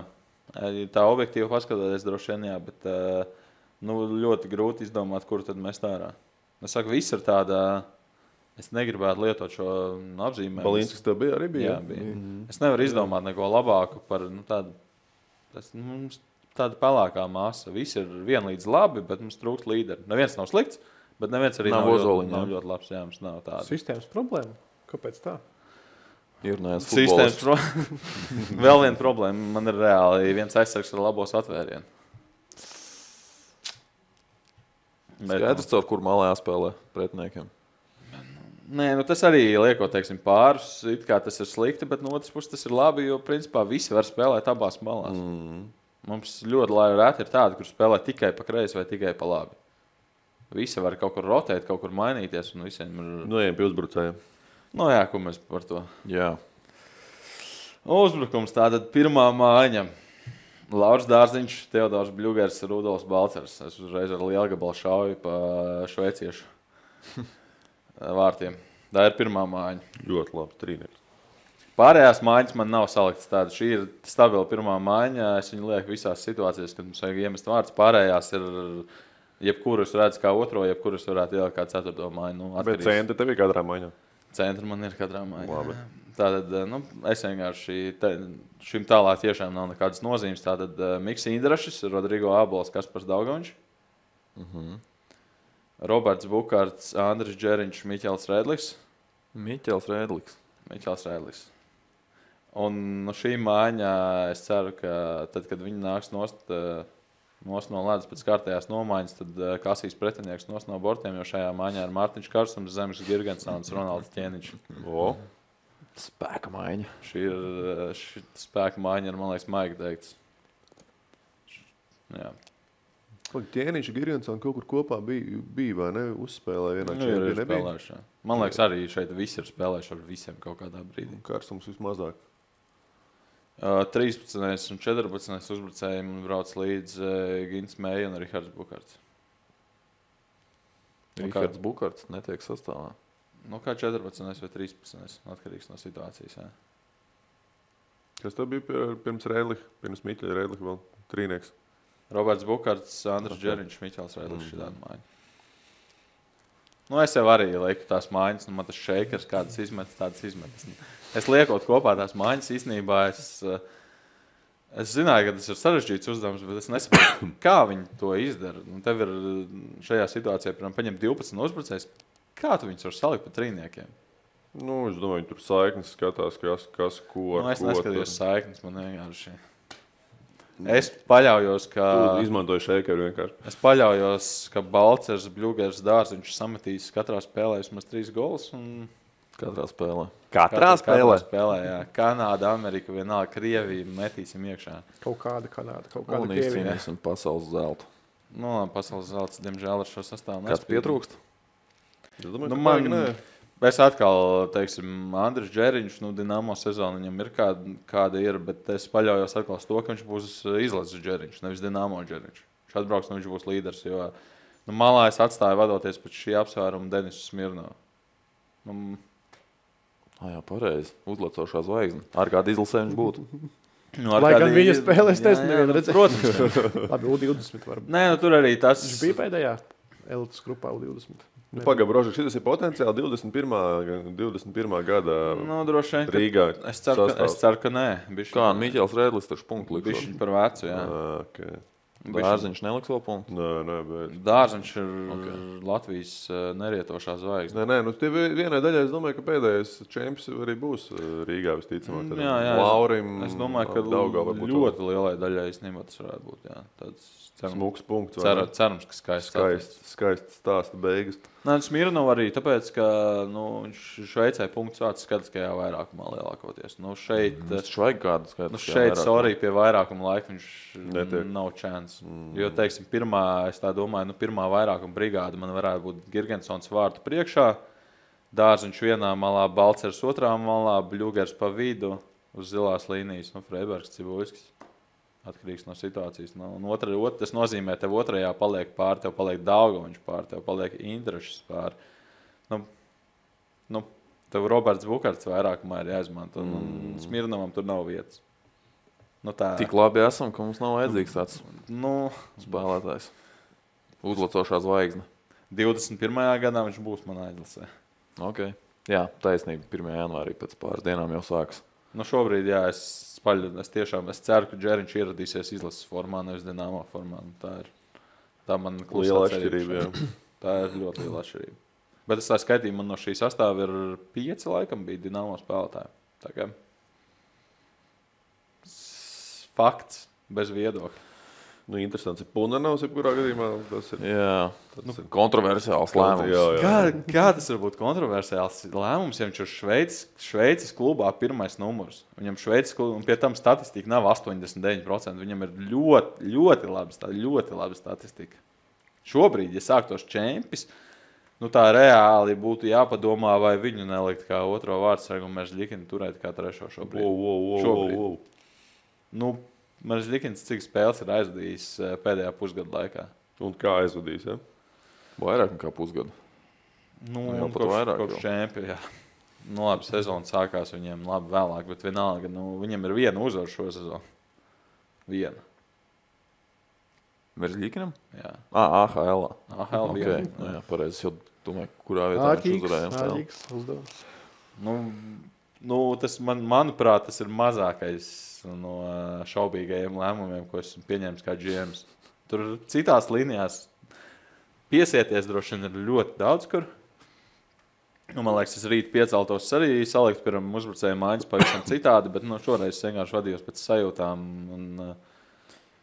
Tā objektīvi paskatoties, droši vien, jā, bet nu, ļoti grūti izdomāt, kur tad mēs tā ārā. Es saku, viss ir tāda, es negribētu lietot šo apzīmējumu. Balīnskis tev bija arī bija? Jā, bija. Es nevaru izdomāt neko labāku par tādu pelēkā masa. Visi ir vienlīdz labi, bet mums trūkst līderi. Neviens nav slikts, bet neviens arī Nav nav Ozoliņa, ļoti labs. Jā, mums nav tāda. Sistēmas problēma. Kāpēc tā? Ir nēs Sistēmas futbolists. Vēl viena problēma. Man ir reāli viens aizsargs ar labos atvērienu. Skaidrs, caur kur malā jāspēlē pretiniekiem. Nē, nu tas arī liekot, teiksim, pārus. It kā tas ir slikti, bet no otras puses tas ir labi, jo principā visi var spēlēt abās malās. Mums ļoti reti ir tādi, kur spēlē tikai pa kreisi vai tikai pa labi. Visi var kaut kur rotēt, kaut kur mainīties. Un visiem ir... Nu, ejam pie uzbrucējiem. Nu jā, ko mēs par to? Jā. Uzbrukums tātad pirmā mājiņa. Lauris Dārziņš, Teodors Bļugers, Rudolfs Balcers. Es uzreiz ar lielu gabalu šauju pa šveiciešu vārtiem. Tā ir pirmā mājiņa. Ļoti labi, trīnieks. Pārējās mājiņas man nav saliktas tādas. Šī ir stabila pirmā mājiņa. Es viņu lieku visās situācijās, kad mums vajag iemest vārdus. Pārējās ir jebkurus redz kā otro, jebkurus varētu ielikt kā ceturto mājiņu. Nu, Bet centri tev ir katrā maiņā. Centri man ir katrā mājiņā. Labi. Tātad nu, es vienkārši šim tālāk tiešām nav nekādas nozīmes. Tātad Miks Indrašs, Rodrigo Ābols, Kaspars Daugaviņš, Roberts Bukārts, Andris Džeriņš, Miķels Rēdlis. Miķels Rēdlis. Un no šī mājiņā es ceru, ka tad, kad viņi nāks nost no ledus pēc kārtējās nomaiņas, tad kasīs pretinieks nost no bortiem, jo šajā mājiņā ir Mārtiņš Karsums, Zemes Girgensons, Ronalds Ķēniņš. Spēka maiņa. Šī spēka mājiņa ir, man liekas, maigi teikts. Jā. Ķēniņš un Girgensons kaut kur kopā bija vai ne? Uzspēlēja vienā Nu, ir čempionā. spēlējuši. Man liekas, arī šeit visi ir spēlējuši ar visiem kaut kādā brīdī. Karsums vismazāk. 13. un 14. uzbrucējiem brauc līdz Gins Meija un Rihards Bukārts. Rihards Bukārts netiek sastāvā. Nu, kā 14. vai 13. atkarīgs no situācijas. Jā. Kas tev bija pirms Rēdliha, pirms Miķeļa Rēdliha vēl trīnieks? Roberts Bukārts, Andris Džeriņš, Miķels Rēdlis šī tāda mājiņa. Nu, es jau arī lieku tās mājiņas, un man tas šeikers kādas izmetas, tādas izmetas. Es liekot kopā tās mājiņas, īstenībā es zināju, ka tas ir sarežģīts uzdevums, bet es nesaprotu, kā viņi to izdara. Un tev ir šajā situācijā, piemēram, paņemt 12 uzbrucējus. Kā tu viņus var salikt pa trīniekiem? Nu, es domāju, viņi tur saiknes skatās, kas ko ar Nu, es ko. neskatījos saiknes, man vienkārši. Es paļaujos, ka... Tu izmantoji šeikeru vienkārši. Es paļaujos, ka Balcers, Bļugers, Dārziņš sametīs katrā spēlē vismaz 3 golus. Un... Katrā spēlē. Katrā spēlē, jā. Kanāda, Amerika, vienalga, Krievija metīsim iekšā. Kaut kāda Kanāda, kaut kāda Un Krievija. izcīnīsim pasaules zeltu. Nu, pasaules zelts, diemžēl, ar šo sastāvu Kāds pietrūkst? Es domāju, Nu, ka man, baigi nē. es atkal, teiksim, Andris Džeriņš, Dinamo sezona viņam ir kāda ir, bet es paļaujos atkal uz to, ka viņš būs izlases Džeriņš, nevis Dinamo Džeriņš. Viņš atbrauks, viņš būs līderis, jo malā es atstāju vadoties pēc šī apsvēruma Denisu Smirnovu. Jā, pareizi. Uzlecošā zvaigzne. Ar kādu izlasē viņš būtu? Lai gan viņa spēlēs, es nevienu redzēju. Protams. Labi, U20 varbūt. Nē, nu tur arī tas... Viņš bija pēdējā elites grupā U20. Pagaid, Brožek, šis ir potenciāli 21. gada Nu, droši vien, Rīgā. es ceru, ka nē. Kā Miķels Rēdlis taču punktu Bišķiņ likšot. par vecu, jā. Okay. Dārziņš neliks vēl punktu. Nē, bet... Dārziņš ir Latvijas nerietošā zvaigzne. Nē, tie vienai daļai es domāju, ka pēdējais čempions arī būs Rīgā visticamāk. Jā, Laurim, es domāju, ka ļoti lielai daļai īstenībā tas varētu būt. Jā. Tāds smuks punkts. Cerams, ka skaists stāsta beigas. Nē, Smirnov arī tāpēc, ka viņš Šveicē punkts vārds skatiskajā vairākumā lielākoties. Šeit, vajag kādu skatiskajā šeit sorry, pie vairākuma laika viņš netiek. Nav chance. Jo, teiksim, es tā domāju, pirmā vairākuma brigāda man varētu būt Girgensons vārtu priekšā, Dārziņš vienā malā, Balcers otrā malā, Bļugers pa vidu uz zilās līnijas, Freibergs, Cibuļskis. Atkarīgs no situācijas. Tas nozīmē, tev otrajā paliek pār, tev paliek Daugoviņš pār, tev paliek Indrašs pār. Tev Roberts Bukarts vairākumā ir jāizmanto. Smirnovam tur nav vietas. Tik labi esam, ka mums nav vajadzīgs tāds spēlētājs. Uzlacošā zvaigzne. 21. gadā viņš būs manā aizlasē. Ok. Jā, taisnība. 1. janvārī pēc pāris dienām jau sāks. Šobrīd, jā, es ceru, ka Džeriņš ieradīsies izlases formā, nevis Dinamo formā. Tā man liela atšķirība. Tā ir ļoti liela atšķirība. Bet es tā skaitīju, man no šī sastāva ir 5 laikam bija Dinamo spēlētāji. Tā kā fakts, bez viedokļa. Interesants ir Punanovs, jebkurā gadījumā. Tas ir kontroversiāls lēmums. Kā tas var būt kontroversiāls lēmums, ja viņš ir Šveices klubā pirmais numurs? Viņam Šveices klubā, un pie tam statistika nav 89%. Viņam ir ļoti laba statistika. Šobrīd, ja sāktos čempis, tā reāli būtu jāpadomā, vai viņu nelikt kā otro vārdsargu un Meržļikinu turēt kā trešo šobrīd. Meržļikins cik spēles ir aizvadījis pēdējā pusgada laikā. Un kā aizvadījis, ja? Vairāk nekā pusgadu. Kopš čempi, jā. Labi, sezona sākās viņiem labi vēlāk, bet vienalga, viņam ir viena uzvara šo sezonu. Viena. Meržļikinam? Jā. AHL. AHL viena. Jā, pareizi. Es jau domāju, kurā vietā viņš uzvarējām. Āķīgs uzdevums. Tas manuprāt, tas ir mazākais no šaubīgajiem lēmumiem, ko esmu pieņēmis kā GMs. Tur citās līnijās piesieties droši vien ir ļoti daudz, kur. Man liekas, es rīt pieceltos arī salikt pirms uzbrucēju mājas pavisam citādi, bet šoreiz es vienkārši vadījos pēc sajūtām un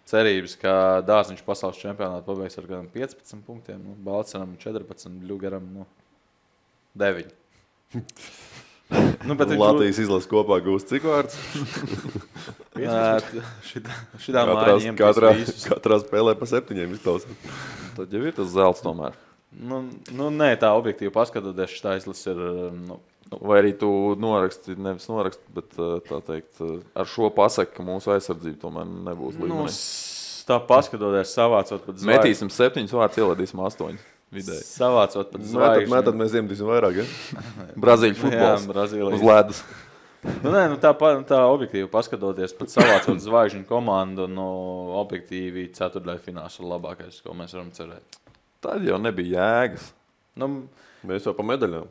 cerības, ka Dārziņš pasaules čempionātu pabeigs ar gan 15 punktiem, Balceram 14, Bļugaram 9. Latvijas izlases kopā gūst cik vārds? Šitā mājiņa katrā spēlē pa 7 izklausās. Tad jau ir tas zelts tomēr. Nē, tā objektīvi paskatoties, šitā izlase ir... Vai arī tu nevis noraksti, bet tā teikt, ar šo pasaki, ka mūsu aizsardzība tomēr nebūs līmenī. Tā paskatoties, savācot pat zvaigžņu. Metīsim 7 vārds, ieladīsim 8. Vidēji. Savācot pat zvaigžņu. Tad mēs iemetīsim vairāk, ja? Brazīļu futbols uz ledus. Tā objektīvi paskatoties, pat savācot zvaigžņu komandu, objektīvi ceturtdaļfināls ir labākais, ko mēs varam cerēt. Tad jau nebija jēgas. Mēs jau pa medaļām.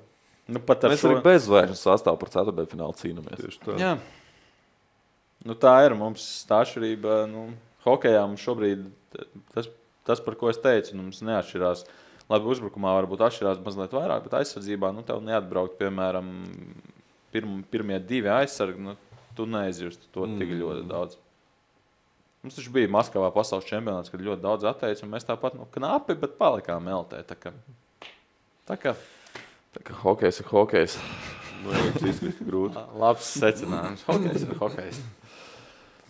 Mēs arī bez zvaigžņu sastāvu par ceturtdaļfinālu cīnamies. Tieši tā. Jā. Tā ir mums tā atšķirība. Hokejā mums šobrīd tas, par ko es teicu, mums neatšķirās. Labi, uzbrukumā varbūt atšķirās mazliet vairāk, bet aizsardzībā tev neatbraukt, piemēram, pirmie 2 aizsargi, tu neizjust to tik ļoti daudz. Mums taču bija Maskavā pasaules čempionāts, kad ļoti daudz atteica, un mēs tāpat knapi, bet palikām eltē. Tā kā hokejs ir hokejs. Izkrist grūti. Labs secinājums. Hokejs ir hokejs.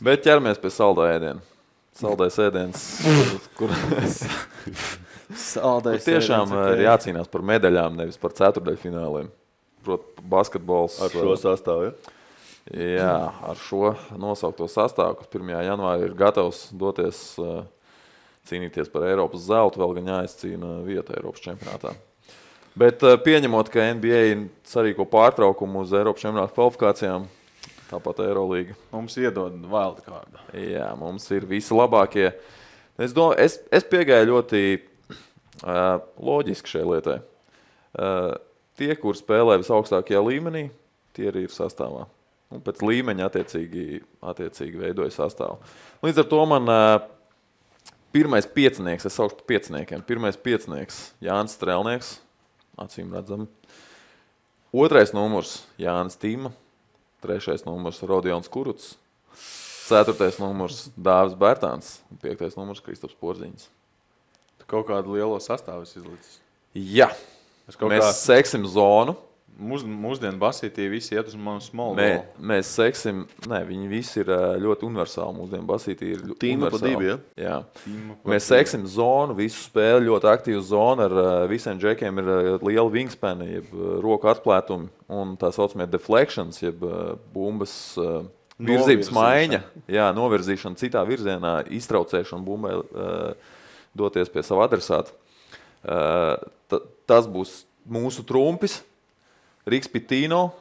Bet ķeramies pie saldā ēdiena. Saldais ēdiens, kur tiešām ir jācīnās par medaļām, nevis par ceturtdaļfināliem. Proti, basketbols. Ar šo sastāvu, ja? Jā, ar šo nosaukto sastāvu, kas 1. janvārī ir gatavs doties cīnīties par Eiropas zeltu, vēl gan jāizcīna vieta Eiropas čempionātā. Bet pieņemot, ka NBA sarīko pārtraukumu uz Eiropas čempionāta kvalifikācijām, tāpat Eirolīga. Mums iedod wildcardu. Jā, mums ir visi labākie. Es piegāju ļoti loģiski šai lietai. Tie, kur spēlē visaugstākajā līmenī, tie arī ir sastāvā. Un pēc līmeņa attiecīgi veidoja sastāvu. Līdz ar to man Pirmais piecinieks, es saukšu par pieciniekiem. Pirmais piecinieks Jānis Strēlnieks, acīm redzami. Otrais numurs Jānis Tīma. Trešais numurs Rodions Kuruts. Ceturtais numurs Dāvis Bērtāns. Un piektais numurs Kristaps Porziņš. Tu kaut kādu lielo sastāvu izlicis. Jā, mēs seksim zonu. Mūsdienu basītī visi iet uz manu small Mēs ball. seksim, viņi visi ir ļoti universāli. Mūsdienu basītī ir Tīma pa divi, Jā. Mēs seksim zonu, visu spēli, ļoti aktīvu zonu. Ar visiem džekiem ir liela wingspani, jeb roku atplētumi un tā saucamie deflections, jeb bumbas virzības maiņa. Jā, novirzīšana citā virzienā, iztraucēšana bumbai doties pie sava adresāta. Tas būs mūsu trumpis. Riks Pitino,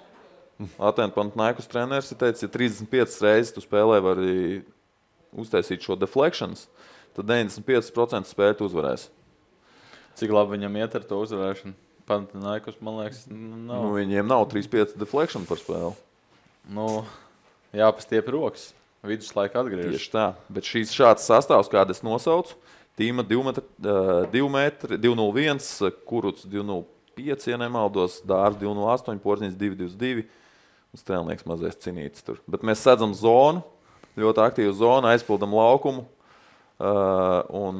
Atēnu Panathinaikos treneris, teica, ja 35 reizes tu spēlē vari uztaisīt šo deflections, tad 95% spēļu tu uzvarēsi. Cik labi viņam iet ar to uzvarēšanu? Panathinaikos, man liekas, nav. Viņiem nav 3-5 deflection par spēli. Jāpastiep rokas. Viduslaika atgriežas. Tieši tā. Bet šāds sastāvs, kādu es nosaucu, Tīma 2 metri, 201, Kuruts 205, ja nemaldos, Dārs 208, Porziņš 222 un Strēlnieks mazais cinītis tur. Bet mēs sedzam zonu, ļoti aktīvu zonu, aizpildam laukumu un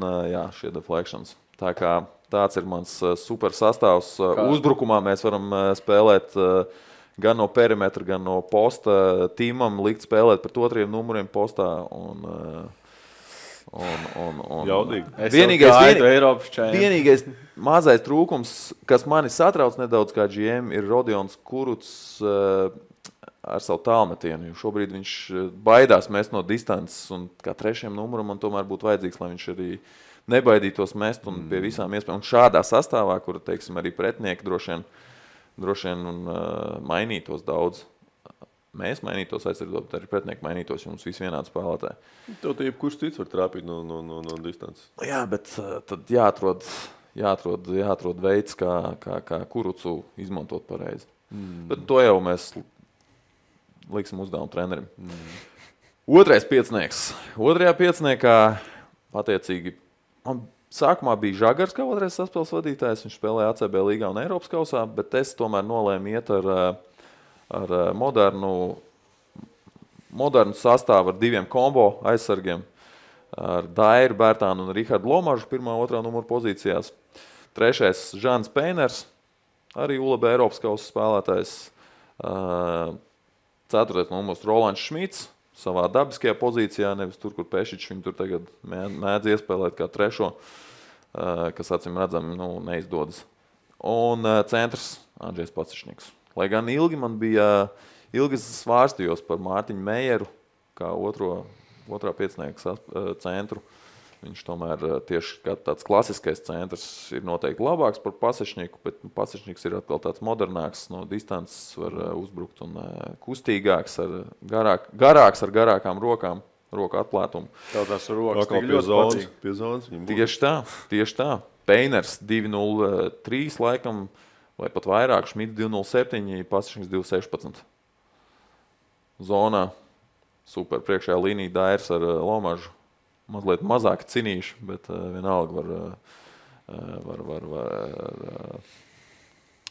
šie deflections. Tā kā tāds ir mans super sastāvs. Uzbrukumā mēs varam spēlēt gan no perimetra, gan no posta. Tīmam likt spēlēt pret otriem numuriem postā un vienīgais mazais trūkums, kas mani satrauc nedaudz kā GM, ir Rodions Kuruts ar savu tālmetienu. Šobrīd viņš baidās mest no distances un kā trešajam numuram man tomēr būtu vajadzīgs, lai viņš arī nebaidītos mest un pie visām iespējām. Un šādā sastāvā, kur, teiksim, arī pretinieki droši vien mainītos daudz. Mēs mainītos aizsardzot, bet arī pretinieki mainītos, jo mums visi vienādi spēlētāji. Tev tie kurš cits var trāpīt no distances. Jā, bet tad jāatrod veids, kā Kurucu izmantot pareizi. Bet to jau mēs liksim uzdevumu trenerim. Otrais piecinieks. Otrajā pieciniekā attiecīgi man sākumā bija Žagars kā otrais saspēles vadītājs. Viņš spēlēja ACB līgā un Eiropas kausā, bet es tomēr nolēmu iet ar modernu sastāvu ar diviem kombo aizsargiem, ar Dairu Bērtānu un Rihardu Lomažu 1. un 2. numuru pozīcijās. Trešais Žans Peiners, arī ULB Eiropas kausa spēlētājs. Ceturtais numurs Rolands Šmits, savā dabiskajā pozīcijā, nevis tur, kur Pešičs viņu tur tagad mēdz iespēlēt kā trešo, kas acīm redzam neizdodas. Un centrs Andžejs Pacišņiks. Lai gan ilgi svārstījos par Mārtiņu Mejeru, kā otrā piecinieka centru. Viņš tomēr tieši kā tāds klasiskais centrs ir noteikti labāks par Pacišņiku, bet Pacišņiks ir atkal tāds modernāks, no distances var uzbrukt un kustīgāks, garāks ar garākām rokām, roku atplētumu. Tev tās rokas tik ļoti patīk. Pie zonas viņam būtu. Tieši tā. Peiners 2.03 laikam, vai pat vairāk, Šmits 2.07, Pacišņiks 2.16. Zonā super priekšējā līnija Dairs ar Lomažu. Mazliet mazāk cinīši, bet vienalga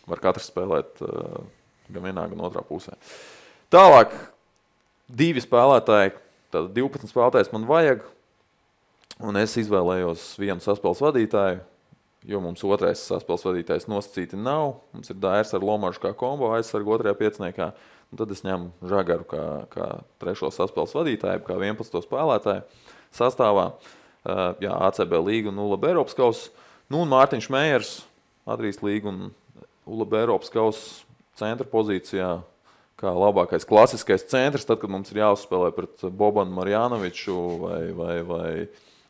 var katrs spēlēt gan vienā, gan otrā pusē. Tālāk, divi spēlētāji, tātad 12 spēlētājs man vajag, un es izvēlējos vienu saspēles vadītāju, jo mums otrais saspēles vadītājs nosacīti nav. Mums ir Dairs ar Lomažu kā kombo aizsargu otrajā pieciniekā, un tad es ņemu Žagaru kā trešo saspēles vadītāju, kā 11. spēlētāju sastāvā. ACB līga un ULB Eiropas kausa. Un Mārtiņš Mejers, Adrijas līga un ULB Eiropas kausa centra pozīcijā, kā labākais klasiskais centrs, tad, kad mums ir jāuzspēlē pret Bobanu Marjanoviču vai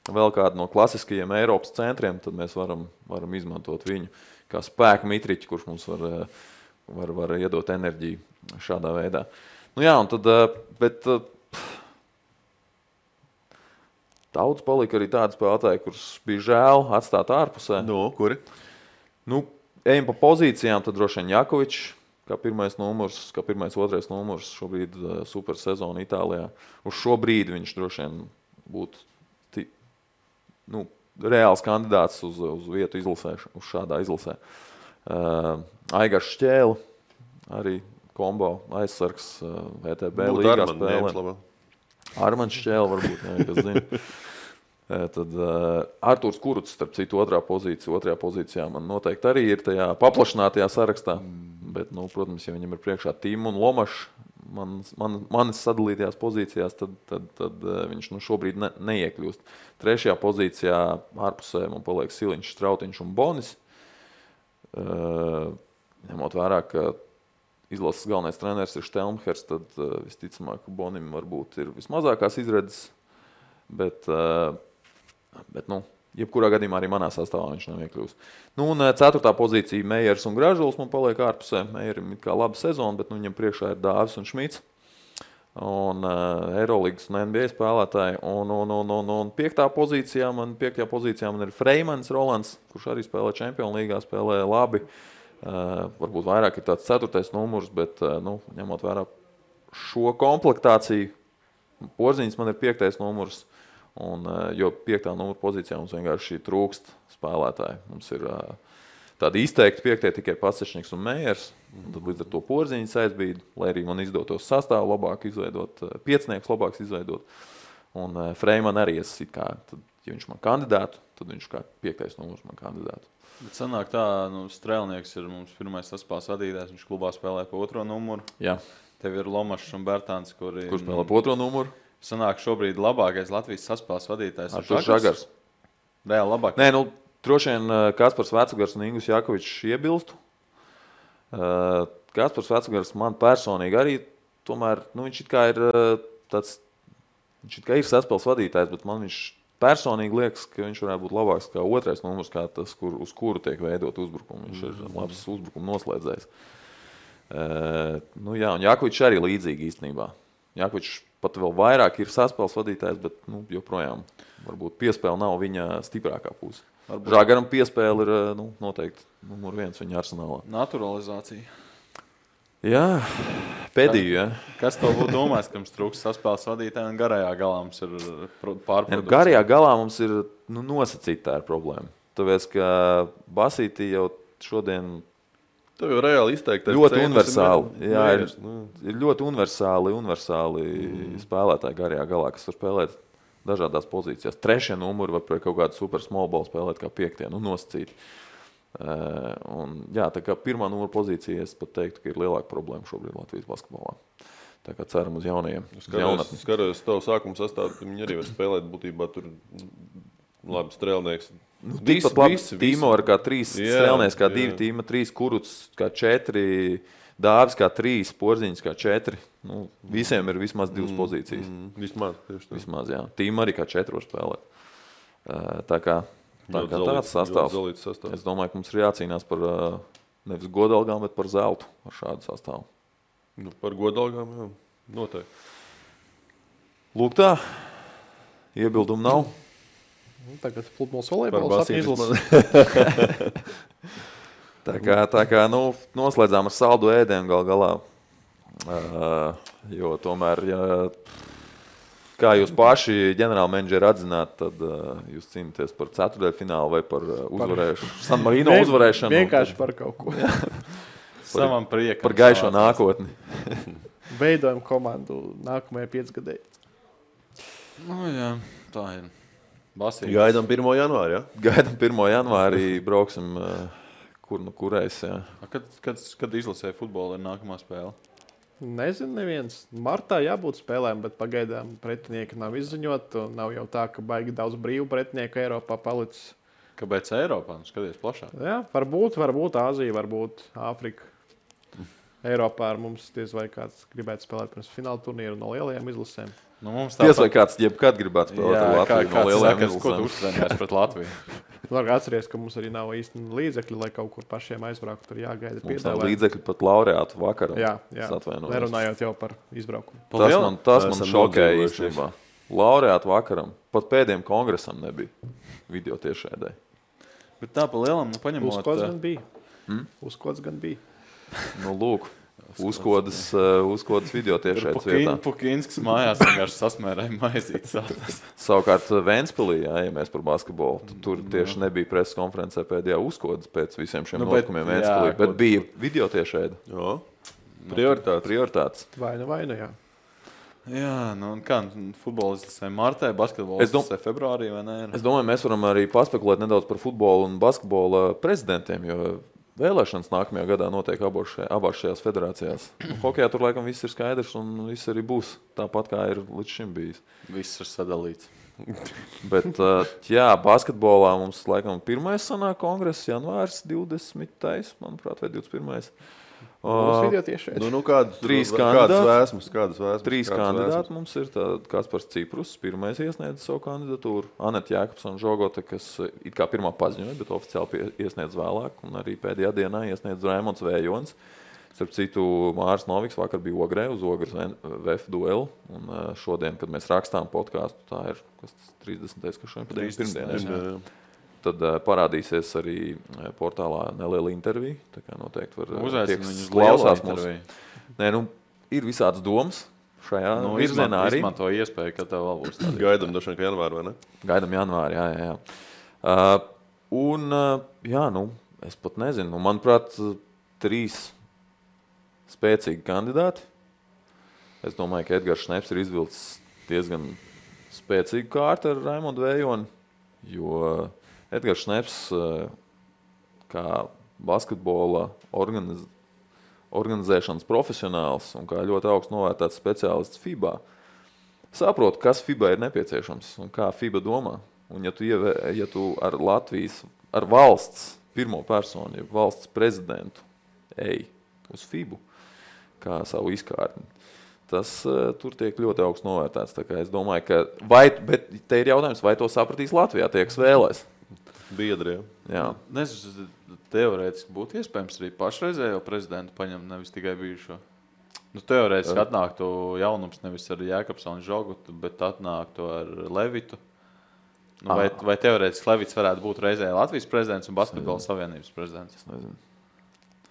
vēl kādu no klasiskajiem Eiropas centriem, tad mēs varam izmantot viņu kā spēku mitriķi, kurš mums var iedot enerģiju šādā veidā. Un tad, bet daudz palika arī tādi spēlētāji, kurus bija žēl atstāt ārpusē. Kuri? Ejam pa pozīcijām, tad droši vien Jakovičs, kā pirmais numurs, kā pirmais otrais numurs, šobrīd super sezona Itālijā. Uz šo brīdi viņš droši vien būtu reāls kandidāts uz vietu izlasē, uz šādā izlasē. Aigars Šķēle, arī kombo aizsargs VTB līgā spēlē. Armāns Šķēle varbūt, kas zina. Tad Artūrs Kuruts, starp citu, otrajā pozīcijā man noteikti arī ir tajā paplašinātajā sarakstā. Bet, protams, ja viņam ir priekšā Tīma un Lomašs manis sadalītajās pozīcijās, tad viņš šobrīd neiekļūst. Trešajā pozīcijā ārpusē man paliek Siliņš, Strautiņš un Bonis. Ņemot vērā, ka izlases galvenais treneris ir Štelmhers, tad visticamāk, ka Bonim varbūt ir vismazākās izredzes. Bet jebkurā gadījumā arī manā sastāvā viņš nav iekļūst. Un 4. pozīcija Meijers un Gražuls man paliek ārpusē. Meijerim ir kā laba sezona, bet viņam priekšā ir Dāvis un Šmits. Un Eirolīgas un NBA spēlētāji. Un 5. pozīcijā man ir Freimans Rolands, kurš arī spēlē Čempionu līgā, spēlē labi. Varbūt vairāk ir tāds 4. numurs, bet ņemot vērā šo komplektāciju, Porziņš man ir 5. numurs. Jo 5. numura pozīcijā mums vienkārši trūkst spēlētāji. Mums ir tādi izteikti 5. tikai Pasečniks un Meijers. Tad līdz ar to Porziņš aizbīd, lai arī man izdotos sastāvu labāk izveidot, piecnieks labāks izveidot. Un Freiman arī tad, ja viņš man kandidātu, tad viņš kā 5. numurs man kandidātu. Bet sanāk tā, Strēlnieks ir mums pirmais saspēles vadītājs, viņš klubā spēlē pa 2. numuru. Jā. Tev ir Lomašs un Bertāns, kurš spēlē pa 2. numuru. Sanāk šobrīd labākais Latvijas saspēles vadītājs ir Žagars. Reāli labāk. Nē, droši vien Kaspars Vecugars un Ingus Jakovičs iebilstu. Kaspars Vecugars man personīgi arī, tomēr, viņš it kā ir saspēles vadītājs, bet man viņš personīgi liekas, ka viņš varētu būt labāks kā 2. numurs, kā tas, uz kuru tiek veidot uzbrukumu. Viņš ir labs uzbrukumu noslēdzējs. Un Jakovičs arī līdzīgi īstenībā. Jakovičs pat vēl vairāk ir saspēles vadītājs, bet joprojām varbūt piespēle nav viņa stiprākā puse. Žagaram piespēle ir noteikti numur 1 viņa arsenālā. Naturalizācija. Jā, pēdīju, jā. Kas to būtu domājis, ka mums trūks saspēles vadītāji un garajā galā mums ir pārprodukcija? Garajā galā mums ir nosacīta tā ir problēma. Tāpēc, ka Basītī jau šodien tev jau reāli izteikti. Ļoti universāli. Jā, ir ļoti universāli spēlētāji garajā galā, kas var spēlēt dažādās pozīcijās. 3. numuri var pret kaut kādu super small ball spēlēt kā 5. nosacīti. Tā kā 1. numura pozīcija, es pat teiktu, ka ir lielāka problēma šobrīd Latvijas basketbolā. Tā kā ceram uz jaunajiem. Skaros tavu sākumu sastāvu, viņi arī var spēlēt būtībā tur labi Strēlnieks. Tīmo ar kā 3 Strēlnieks, kā 2 Tīma, 3 Kuruts, kā 4 Dāvis, kā 3 Porziņš, kā 4. Visiem ir vismaz 2 pozīcijas. Vismaz, jā. Tīma arī kā 4 var spēlēt. Tā kā tāds sastāvs. Es domāju, ka mums ir jācīnās par nevis godalgām, bet par zeltu ar šādu sastāvu. Par godalgām, jā. Noteikti. Lūk tā. Iebildumu nav. Tagad futbols volejbols izlases. Tā kā noslēdzām ar saldu ēdienu galā. Jo tomēr, kā jūs paši ģenerālmenedžeri atzināt, tad jūs cīnāties par ceturtdaļfinālu vai par uzvarēšanu. San Marino uzvarēšanu. Vienkārši par kaut ko. Savam priekam. Par gaišo nākotni. Veidojam komandu nākamajai 5 gadai. Jā, tā ir. Basītis. Gaidām 1. janvāri, jā? Gaidām 1. janvārī, brauksim kurais, jā. Kad izlasē futbolu ir nākamā spēle? Nezinu, neviens. Martā jābūt spēlēm, bet pagaidām pretinieki nav izziņot. Nav jau tā, ka baigi daudz brīvu pretinieku Eiropā palicis. Kāpēc Eiropā? Skaties plašāk. Jā, varbūt Āzija, varbūt Āfrika. Eiropā ar mums diez vai kāds gribētu spēlēt pirms fināla turnīru no lielajām izlasēm. Diez vai kāds jebkad gribētu spēlēt ar Latviju no lielajām izlasēm. Ko tu uztrenējies pret Latviju? Var atceries, ka mums arī nav īsti līdzekļi, lai kaut kur pašiem aizbraukt. Tur jāgaida piedāvājumi. Mums nav līdzekļi pat laureātu vakaram. Jā. Nerunājot jau par izbraukumu. Tas man šokēja īstenībā. Laureātu vakaram. Pat pēdējiem kongresam nebija video tiešraidē. Bet tā pa lielam, paņemot... Uz kods gan bija. Lūk. uzkodas video tiešais vietā. Pukinskas mājās vienkārši sasmērēja maizītes. Savukārt Ventspilī, ja mēs par basketbolu, tur tieši nebija preses konferencē pēdējā uzkodas pēc visiem šiem notikumiem Ventspilī, bet bija video tiešēdi. Jā. Prioritātes. Vai nu, jā. Jā, nu un kā, futbolists martē, basketbolists februārī vai ne? Es domāju, mēs varam arī paspekulēt nedaudz par futbolu un basketbola prezidentiem, jo vēlēšanas nākamajā gadā notiek abās šajās federācijās. Hokejā tur laikam viss ir skaidrs un viss arī būs tāpat, kā ir līdz šim bijis. Viss ir sadalīts. Bet, jā, basketbolā mums laikam pirmais sanāk kongress, janvārs 20. manuprāt, vai 21. Mums video tiešais. Kādas vēsmas? Trīs kandidāti mums ir. Kaspars Ciprus, pirmais iesniedz savu kandidatūru. Aneta Jēkabsona Žogote, kas it kā pirmā paziņoja, bet oficiāli iesniedz vēlāk. Un arī pēdējā dienā iesniedz Raimonds Vējons. Starp citu, Māris Noviks vakar bija Ogrē uz Ogres VF duelu. Un šodien, kad mēs rakstām podcastu, tā ir 30. kas šodien pirmdien. Tad parādīsies arī portālā neliela intervija. Tā kā noteikti var uzaicināt viņus klausās mūsu. Nē, ir visādas domas šajā virzienā arī. Izmanto iespēju, ka tev vēl būs tādi. Gaidam dažiem, ka janvāri, vai ne? Gaidam janvāri, jā. Es pat nezinu. Manuprāt, 3 spēcīgi kandidāti. Es domāju, ka Edgars Šneps ir izvilcis diezgan spēcīgu kārtu ar Raimondu Vējoni, jo Edgars Šneps, kā basketbola organizēšanas profesionāls un kā ļoti augsts novērtēts speciālists FIBA, saprot, kas FIBA ir nepieciešams un kā FIBA domā. Un ja tu ar Latvijas, ar valsts pirmo personu, ja valsts prezidentu ej uz FIBU kā savu izkārtni, tas tur tiek ļoti augsts novērtēts. Tā kā es domāju, ka bet te ir jautājums, vai to sapratīs Latvijā tie, kas vēlēs. Biedriem. Jā. Nezinu, teorētiski būtu iespējams arī pašreizējo prezidentu paņemt, nevis tikai bijušo. Teorētiski atnāktu jaunums nevis ar Jēkabsonu Žogutu, bet atnāktu ar Levitu. Vai teorētiski Levits varētu būt reizē Latvijas prezidents un Basketbola savienības prezidents? Es nezinu.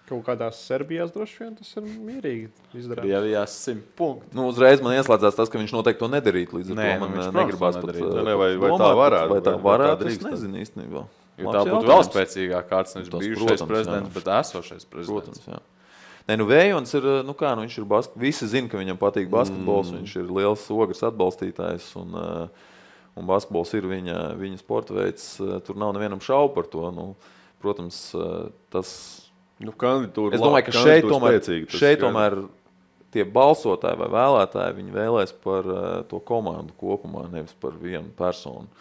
Kaut kādās Serbijās droši vien tas ir mierīgi izdarāms. Krievijās 100 punkti. Uzreiz man ieslēdzās tas, ka viņš noteikti to nedarīt. Līdz ar to man negribās pat vai tā varētu. Vai tā varētu, es nezinu īstenībā. Jo tā būtu vēl spēcīgāk kārts, nevis bijušais prezidents, bet esošais prezidents. Protams, jā. Vējons ir, viņš ir visi zina, ka viņam patīk basketbols, viņš ir liels Ogres atbalstītājs un basketbols ir viņa sporta veids. Tur nav nevienam šaubu par to. Protams, tas... Es domāju, ka šeit tomēr tie balsotāji vai vēlētāji viņi vēlēs par to komandu kopumā, nevis par vienu personu.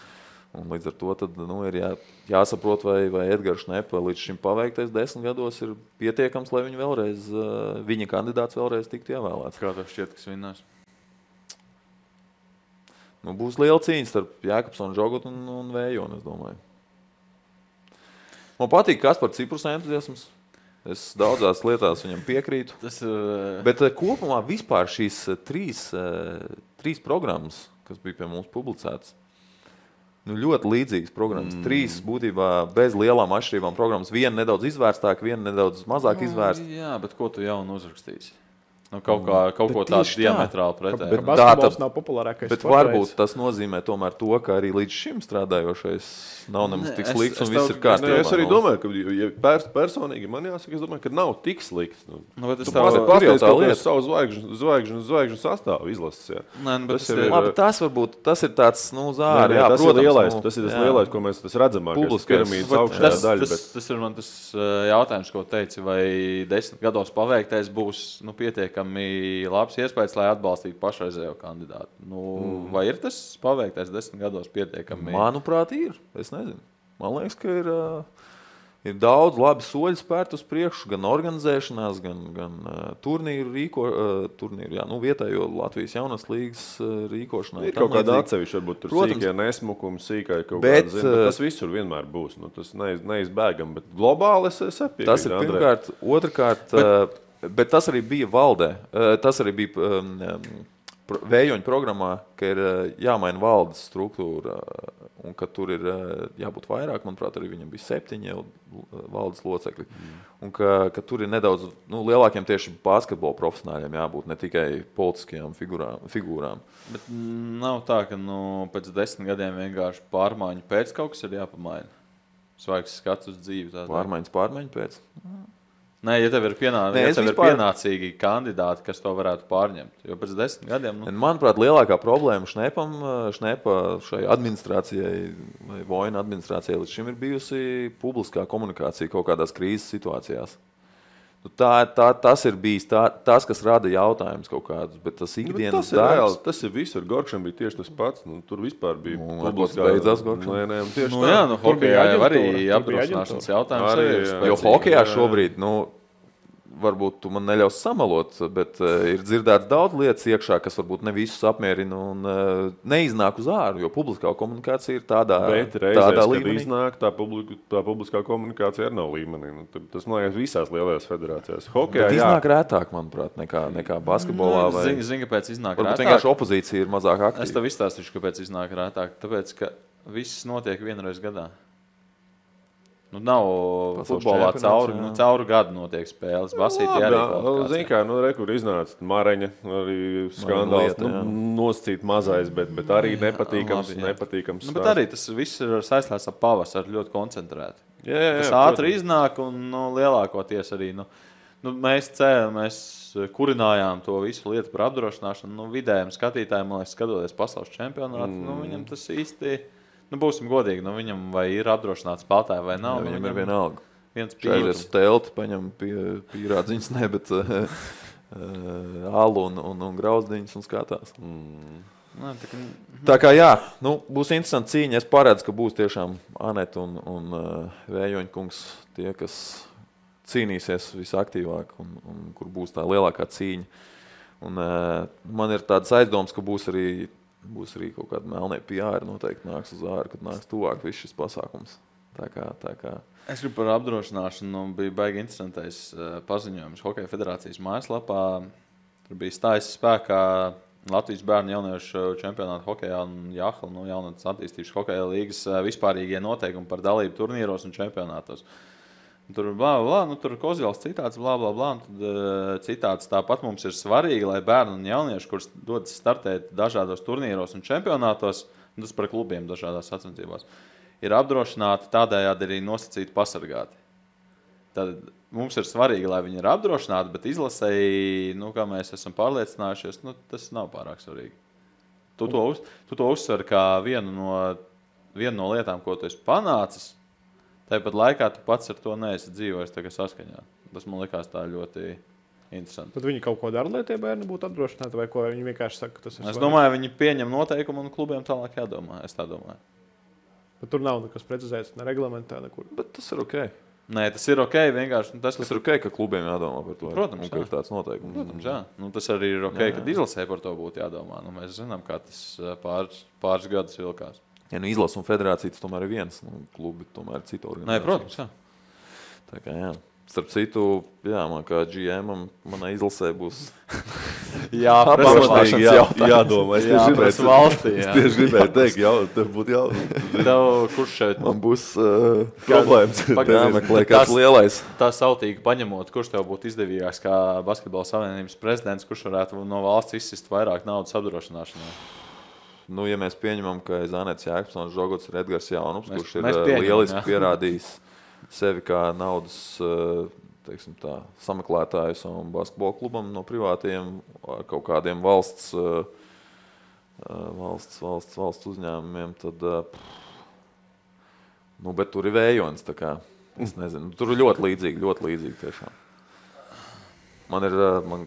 Un līdz ar to tad, ir jāsaprot, vai Edgars Šnepa līdz šim paveiktais 10 gados ir pietiekams, lai viņa kandidāts vēlreiz tiktu ievēlēts. Kā tev šķiet, kas vinnās? Būs liela cīņa starp Jēkabsonu Žogutu un Vējonu, es domāju. Man patīk Kaspar Ciprus entuziasms. Es daudzās lietās viņam piekrītu. Bet kopumā vispār šīs trīs programmas, kas bija pie mums publicētas, ļoti līdzīgas programmas. 3 būtībā bez lielām atšķirībām programmas. Viena nedaudz izvērstāk, viena nedaudz mazāk izvērsta. Jā, bet ko tu jaunu uzrakstīsi? Kaut ko tādu diametrāli pretēji. Bet basketbols nav populārākais. Bet varbūt tas nozīmē tomēr to, ka arī līdz šim strādājošais nav nemaz tik slikts un viss ir kārtībā. Es arī domāju, ka ja personīgi man jāsaka, es domāju, ka nav tik slikts. Tu pasties, ka savu zvaigžņu sastāvu izlases. Tas ir tāds, zāri. Tas ir lielais, tas lielais, ko mēs redzamākais piramīdas augšējā daļa. Tas ir man tas jautājums, ko teici, vai 10 gados paveiktais būs pietiekami labs iespējas, lai atbalstītu pašreizējo kandidātu. Vai ir tas paveiktais 10 gados pietiekami? Manuprāt, ir. Es nezinu. Man liekas, ka ir daudz labi soļi spērt uz priekšu, gan organizēšanās, gan turnīru vietējo Latvijas jaunas līgas rīkošanā. Ir kaut kāda atsevišķa, varbūt tur sīkie nesmukumi, sīkai kaut kāda zina, bet tas visur vienmēr būs. Tas neizbēgam, bet globāli es piekrītu. Tas ir pirmkārt. Otrkārt, bet tas arī bija valdē. Tas arī bija Vējoņa programmā, ka ir jāmaina valdes struktūra un ka tur ir jābūt vairāk, manuprāt, arī viņam bija 7 jau valdes locekļi, un ka tur ir nedaudz lielākiem tieši basketbola profesionāļiem jābūt, ne tikai politiskajām figūrām. Bet nav tā, ka pēc 10 gadiem vienkārši pārmaiņu pēc kaut kas ir jāpamaina. Svaigs skats uz dzīvi. Pārmaiņu pēc? Nē, ja tev ir pienācīgi kandidāti, kas to varētu pārņemt. Jo pēc 10 gadiem... Manuprāt, lielākā problēma Šnepa šai administrācijai vai Vojna administrācijai līdz šim ir bijusi publiskā komunikācija kaut kādās krīzes situācijās. Tas ir bijis tas, kas rada jautājumus kaut kādus, bet tas ikdienas darbs... Tas ir visur. Gorkšam bija tieši tas pats. Tur vispār bija publiskā... Beidzās Gorkšam. Tieši tā. Hokejā jau arī apdrošināšanas jautājums ir. Jo hokejā šobrīd, varbūt tu man neļaus samalot, bet ir dzirdēts daudz lietas iekšā, kas varbūt ne visus apmierina un neiznāk uz āru, jo publiskā komunikācija ir tādā līmenī. Bet reizēs, kad iznāk, tā publiskā komunikācija arī nav līmenī. Tas, man liekas, visās lielajās federācijās. Hokejā, iznāk rētāk, manuprāt, nekā basketbolā. Zini, kāpēc iznāk rētāk? Varbūt vienkārši opozīcija ir mazāk aktīva. Es tev izstāstīšu, kāpēc iznāk rētāk. Tāpēc, ka viss notiek vienreiz gadā. Nav futbolā cauru gadu notiek spēles. Basītī arī Zini kā, kur iznāca Mareņa, arī skandāls, nosacīt mazais, bet arī nepatīkams. Bet arī tas viss ir saistās ar pavasaru ļoti koncentrēti. Tas ātri iznāk un lielākoties arī, mēs kurinājām to visu lietu par apdrošināšanu. Vidējiem skatītājiem, man liekas, skatoties pasaules čempionātu, viņam tas īsti... būsim godīgi, viņam vai ir apdrošināts spēlētāji vai nav. Viņam ir vienalga. Viens pīrādziņas telti, paņem pīrādziņas, bet alu un grauzdiņas un skatās. Tā kā jā, būs interesanti cīņa. Es paredzu, ka būs tiešām Aneta un Vējoņkungs tie, kas cīnīsies visaktīvāk un kur būs tā lielākā cīņa. Un man ir tāds aizdoms, ka būs arī kaut kāda melnie PR noteikti nāks uz āru, kad nāks tuvāk viss šis pasākums. Tā kā. Es gribu par apdrošināšanu, bija baigi interesantais paziņojums Hokeja federācijas mājaslapā. Tur bija stājis spēkā Latvijas bērnu jauniešu čempionāta hokejā un Jāhla, jaunatnes attīstības hokeja līgas vispārīgie noteikumi par dalību turnīros un čempionātos. Tur tur Kozjals citāts, un tad citāts tāpat mums ir svarīgi, lai bērni un jaunieši, kurus dodas startēt dažādos turnīros un čempionātos, un tas par klubiem dažādās sacensībās, ir apdrošināti, tādējādi arī nosacīti pasargāti. Tad mums ir svarīgi, lai viņi ir apdrošināti, bet izlasēji, kā mēs esam pārliecinājušies, tas nav pārāk svarīgi. Tu to uzsver kā vienu no lietām, ko tu esi panācis. Tāpat laikā tu pats ar to neesi dzīvojis saskaņā. Tas man likās tā ļoti interesanti. Tad viņi kaut ko dara, lai tie bērni būtu apdrošināti, vai ko viņi vienkārši saka, ka tas ir svarīgi? Es domāju, viņi pieņem noteikumu un klubiem tālāk jādomā. Es tā domāju. Bet tur nav nekas precizēts, ne reglamentā, nekur. Bet tas ir ok. Nē, tas ir ok. Vienkārši tas ir ok, ka klubiem jādomā par to. Protams, ir tāds noteikums. Protams, jā. Tas arī ir ok, kad izlasē par to būtu jādomā. Mēs zinām, kā tas pāris gadus vilkās. Ja izlasa un federācija, tas tomēr ir viens. Klubi tomēr ir cita organizācija. Nē, protams, jā. Tā kā jā. Starp citu, man kā GM-am, manai izlasē būs pamatīgi jādomā. Es tieši gribēju teikt, tev būtu kurš šeit? Man būs problēmas. Jāmeklē kāds lielais. Tā sautīgi paņemot, kurš tev būtu izdevīgāks kā Basketbola savienības prezidents, kurš varētu no valsts izsist vairāk naudas apdrošināšanai? Ja mēs pieņemam, ka Zanets Jēkabsons Žogots ir Edgars Jaunups, kurš ir lieliski pierādījis sevi kā naudas sameklētājs un basketbola klubam no privātiem ar kaut kādiem valsts uzņēmumiem, tad, bet tur ir Vējonis, tā kā, es nezinu, tur ir ļoti līdzīgi tiešām. Man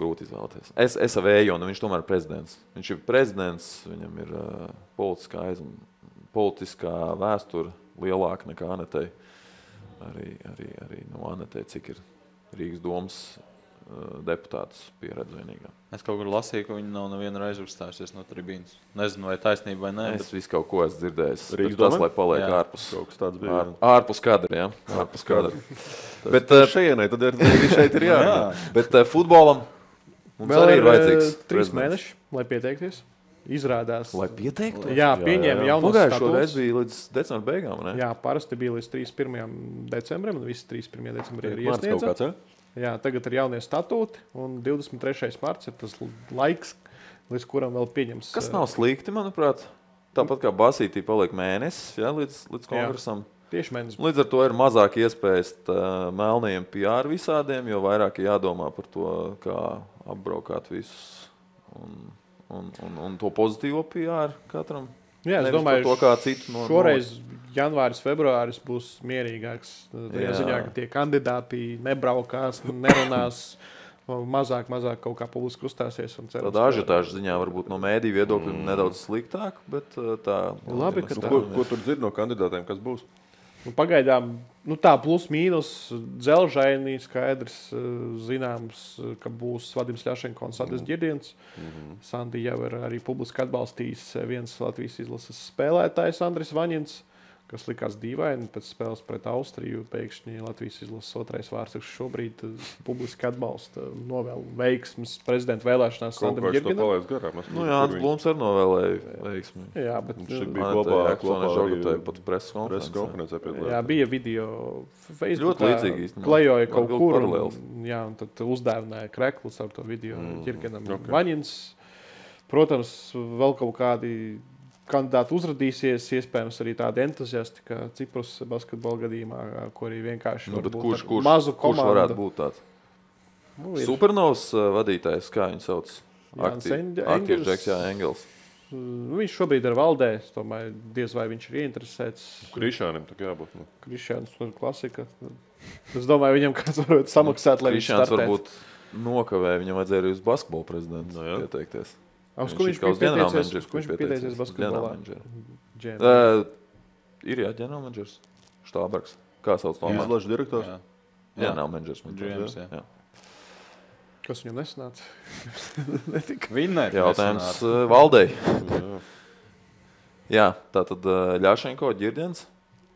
grūti izvēlēties. Es ar Vējonu, viņš tomēr ir prezidents. Viņš ir prezidents, viņam ir politiskā vēsture lielāka nekā Anetei. Arī no Anetei, cik ir Rīgas domas deputātus pieredze vienīgā. Es kaut kur lasīju, ka viņi nav nevienu reizi uzstājusies no tribīnas. Nezinu, vai taisnība vai nē. Es visu kaut ko esmu dzirdējis. Tas, lai paliek ārpus. Kaut kas tāds bija. Ārpus kadra, jā. Ārpus kadra. Bet šejienai, tad arī šeit ir jā. Bet futbolam mums arī ir vajadzīgs 3 mēneši, lai pieteikties. izrādās. Lai pieteiktu? Jā, pieņēma jaunas Pagājušo statūtus. reizi bija līdz decembra beigām, ne? Jā, parasti bija līdz 31. decembrim, un visi 31. decembrī ir Mārts kaut iesniedza. kāds, ja? Jā, tagad ir jaunie statūti, un 23. marts ir tas laiks, līdz kuram vēl pieņems. Kas nav slikti, manuprāt. Tāpat kā Basītī paliek mēnesis, ja, līdz kongresam. Tieši mēnesis. Līdz ar to ir mazāk iespējas melnajiem PR visādiem, jo vairāk ir jādomā par to, kā apbraukāt visus un to pozitīvo PR katram. Jā, es Nevis domāju, par to, kā citu šoreiz janvāris, februāris būs mierīgāks. Tajā ziņā, ka tie kandidāti nebraukās, nerunās, mazāk kaut kā publiski uzstāsies. Tāda ažiotāža ziņā varbūt no mēdīju viedokļa nedaudz sliktāk, bet tā... Labi, ka tā. Ko tur dzird no kandidātiem, kas būs? Pagaidām tā plus mīnus dzelžainī skaidrs zināms, ka būs Vadims Ļašenko un Sandis Ģirdiens. Sandi jau ir arī publiski atbalstījis viens Latvijas izlases spēlētājs Andris Vaņins, kas likās dīvaini pēc spēles pret Austriju. Pēkšņi Latvijas izlases otrais vārds šobrīd publiski atbalsta novēl veiksmes prezidenta vēlēšanās Sandim Ģirdienam. Nu, Jānis Blūms arī novēlēja veiksmi. Jā, bet Viņš bija kopā Žogotai pat preses konferencē. Jā, bija video Facebook. Ļoti līdzīgi īstenībā. Klejoja kaut kur. Paralēls. Jā, un tad uzdāvināja kreklus ar to video Ģirdienam. Vaņins, protams, vēl kaut kādi kandidāti uzradīsies, iespējams arī tādi entuziasti, kā Ciprus basketbola gadījumā, ko arī vienkārši mazu komandu. Kurš varētu būt tāds? Supernovs vadītājs, kā viņu sauc? Aktīvs Engels. Viņš šobrīd ir valdē, es domāju, diez vai viņš ir ieinteresēts. Krišānim tā jābūt. Krišāns ir klasika. Es domāju, viņam kāds varētu samaksāt, lai viņš Krišāns startētu. varbūt nokavē, viņam vajadzēja arī uz basketbola prezidentu pieteikties. Uz ko viņš bija pieteicies basketbolā? Ir ģenerālmenedžers, Štābergs. Kā sauc to? Izlažu direktors? Ģenerālmenedžers. Kas viņam nesanāca? Vinnēt Jautājums valdei. Jā, tātad Ļašenko, Ģirdiens,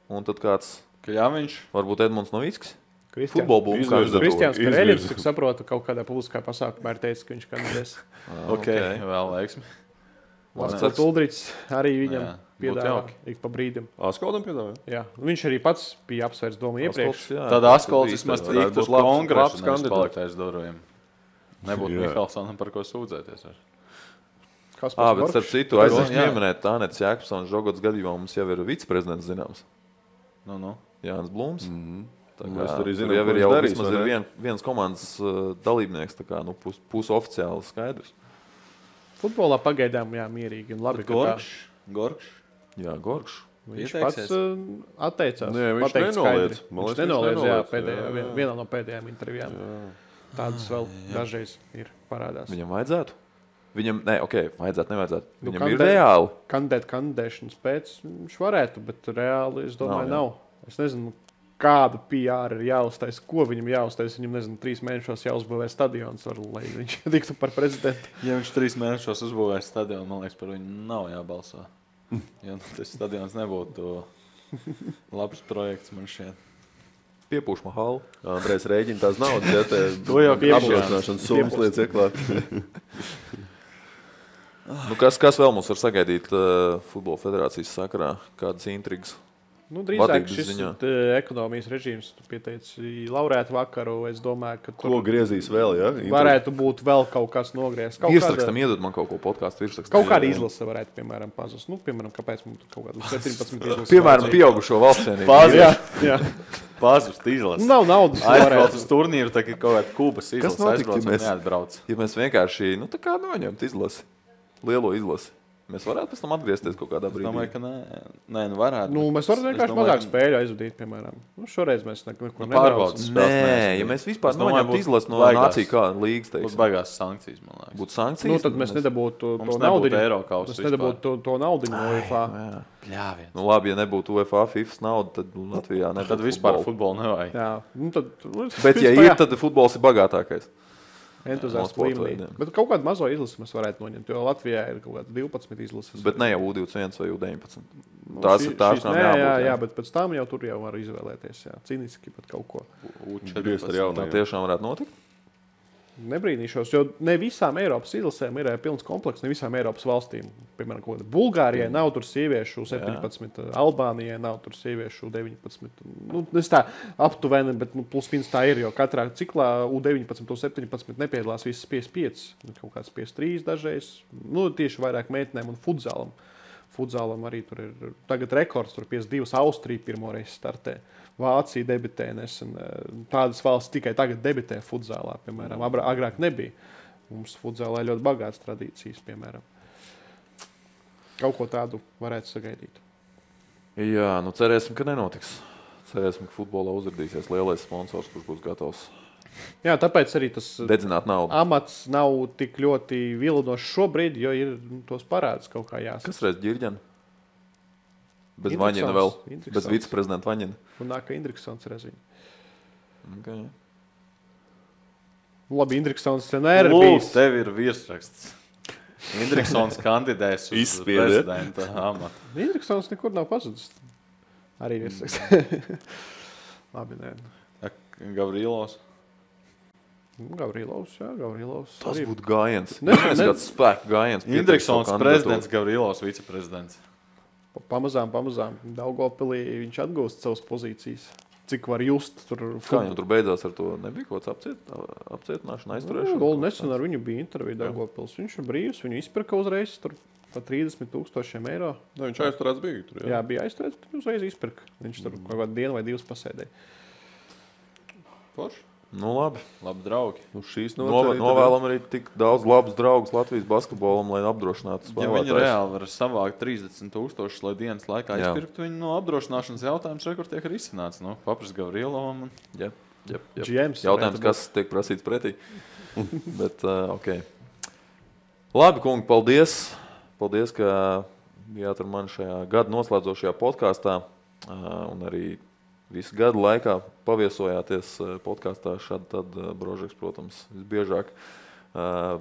un tad kāds, Kļaviņš, varbūt Edmunds Novickis. Futbola būmu kandidatūra. Kristiāns Kareļins, cik saprotu, kaut kādā publiskā pasākumā ir teicis, ka viņš kandidēs. Ok, vēl veiksmi. Lācis Uldriķis arī viņam piedāvā ik pa brīdim. Askoldam piedāvā? Jā, viņš arī pats bija apsvērs domu iepriekš. Tad Askolds vismaz tiktu uz kongresu, nevis palikt aiz durvīm. Nebūtu Mihalsonam par ko sūdzēties. Bet starp citu, aizvien pieminēt Tānets Jākapsons Žogots gadījumā mums jau ir viceprezidents zināms. Jānis Blūms. Mēs tur arī zinām, jau vismaz ir viens komandas dalībnieks, tā kā pusoficiāli skaidrs. Futbolā pagaidām, jā, mierīgi un labi. Gorkš. Jā, Gorkš. Viņš pats atteicās. Nē, viņš nenoliedz. Viņš nenoliedz, jā, vienā no pēdējām intervijām. Tādas vēl dažreiz ir parādās. Viņam vajadzētu? Viņam, nevajadzētu. Viņam ir reāli. Kandidēšanas pēc viņš varētu, bet reāli, es domāju, nav. Es nezinu, kādu PR ir jāuztais, ko viņam jāuztais. Viņam, nezinu, 3 mēnešos jāuzbūvē stadions, lai viņš tiktu par prezidentu. Ja viņš 3 mēnešos uzbūvēs stadionu, man liekas, par viņu nav jābalso. Jo tas stadions nebūtu labs projekts man šķiet. Piepūšma halu. Andrejs rēģina tās naudas, ja te to jau apgrozināšanas summas lietas ieklāt. Kas vēl mums var sagaidīt Futbola federācijas sakarā? Kādas intrigas? Drīzāk šis ekonomijas režīms, tu pieteici laurētu vakaru, es domāju, ka ko griezīs vēl, ja? Varētu būt vēl kaut kas nogriezt. Virsrakstam iedod man kaut ko podkāstu virsrakstam. Kaut kāda izlase varētu, piemēram, pazust. Piemēram, kāpēc mums kaut kāda 17 izlase. Piemēram, pieaugušo valstsienību. Pazust izlase. Nav naudas. Aizbrauc uz turnīru, tā kā kaut kāda Kubas izlase aizbrauc un neatbrauc. Ja mēs vienkārši, tā kā noņemt izlasi, lielo izlasi. Mēs varētu pēc tam atgriezties kaut kādā brīdī. Es domāju, ka nē, varētu. Mēs varam vienkārši mazāk spēļu aizvadīt, piemēram. Šoreiz mēs neko nepārbaudas. Nē, ja mēs vispār noņemtu izlasi no nāciju kā līgas, teiksim. Būtu baigās sankcijas, man liekas. Būtu sankcijas? Tad mēs nedabūtu to naudiņu. Mēs nedabūtu to naudiņu no UEFA. Labi, ja nebūtu UEFA, FIFAs nauda, tad Latvijā nebūtu tad vispār futbolu nevajag. Jā. Bet ja ir, tad futbols ir bagātākais. Entuziastu līmenī. Bet kaut kādu mazo izlasi mēs varētu noņemt, jo Latvijā ir kaut kāda 12 izlases. Bet ne jau U21 vai U19. Tās ir tās, kam jābūt. Jā, bet pēc tam jau tur jau var izvēlēties. Jā. Cīniski pat kaut ko. U14 ar jaunajiem. Tā tiešām varētu notikt? nebrīnīšos, jo ne visām Eiropas izlasēm ir pilns komplekss, ne visām Eiropas valstīm. Piemēram, Bulgārijai nav tur sieviešu 17, Albānijai nav tur sieviešu 19. Nu, es tā aptuveni, bet plus mīnus tā ir, jo katrā ciklā U19, U17 nepiedalās visas 55, kaut kāds 53 dažreiz. Nu, tieši vairāk meitenēm un futzalam. Futzalam arī tur ir tagad rekords, tur 52 Austrija pirmoreiz startē. Vācija debitē nesen. Tādas valsts tikai tagad debitē futzālā, piemēram. Agrāk nebija. Mums futzālā ļoti bagātas tradīcijas, piemēram. Kaut ko tādu varētu sagaidīt. Jā, nu cerēsim, ka nenotiks. Cerēsim, ka futbolā uzrādīsies lielais sponsors, kurš būs gatavs Jā, tāpēc arī tas dedzināt naudu. amats nav tik ļoti vilinošs šobrīd, jo ir tos parāds kaut kā jāsaka. Kas reiz ģirģena? Bez Indriksons. Vaņina vēl. Indriksons. Bez viceprezidenta Vaņina. Un nāk, ka Indriksons reziņ. Okay. Labi, Indriksons vienmēr ir Lūk, bijis. tev ir virsraksts. Indriksons kandidēs uz Izspiediet. prezidenta amatu. Indriksons nekur nav pazudis. Arī virsraksts. Labi, nē. Gavrilovs. Gavrilovs, jā, Gavrilovs. Tas arī. būtu gājiens. Ne- Tas ne- kāds spēku gājiens. Indriksons prezidents, Gavrilovs viceprezidents. Pamazām Daugavpilī viņš atgūst savas pozīcijas. Cik var just tur. Kā viņam tur beidzās ar to? Nebija kaut kāds apcietināšana, aizturēšana? Vēl nesen ar viņu bija intervija Daugavpils. Viņš ir brīvs, viņu izpirka uzreiz tur pa 30,000 eiro. Ne, viņš aizturēts bija tur. Jā, bija aizturēts, bet uzreiz izpirka. Viņš tur kaut kādu dienu vai divas pasēdēja. Forši. Nu labi. Labi, draugi. Nu, šīs Novēlam arī tik daudz labus draugus Latvijas basketbolam, lai apdrošinātu Ja viņi spēlētājus. reāli var savākt 30,000, lai dienas laikā Jā. izpirktu viņu no apdrošināšanas jautājums, kur tiek risināts. Nu, Papris Gavrilovam. Jā. GMs Jautājums, varētu kas tiek prasīts pretī. Bet, ok. Labi, kungi, paldies. Paldies, ka bijāt ar mani šajā gada noslēdzošajā podkāstā. Un arī visu gadu laikā paviesojāties podkāstā. Šādi tad Brožeks, protams, visbiežāk.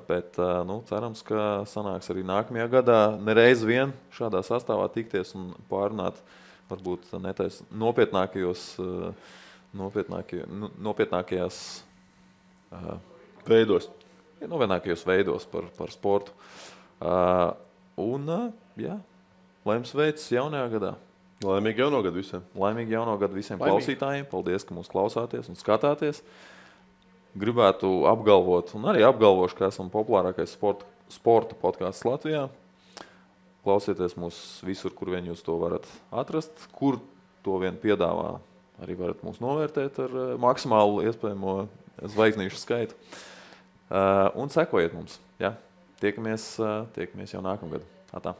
Bet nu, cerams, ka sanāks arī nākamajā gadā nereiz vien šādā sastāvā tikties un pārunāt varbūt netais nopietnākajās veidos. nopietnākajos veidos par sportu. Jā, lai jums veicas jaunajā gadā. Laimīgi jauno gadu visiem. Laimīgi jauno gadu visiem Laimīgi. klausītājiem. Paldies, ka mūs klausāties un skatāties. Gribētu apgalvot, un arī apgalvošu, ka esam populārākais sporta podkāsts Latvijā. Klausieties mūs visur, kur vien jūs to varat atrast. Kur to vien piedāvā, arī varat mūs novērtēt ar maksimālu iespējamo zvaigznīšu skaitu. Un sekojiet mums. Ja? Tiekamies jau nākamgad. Atā.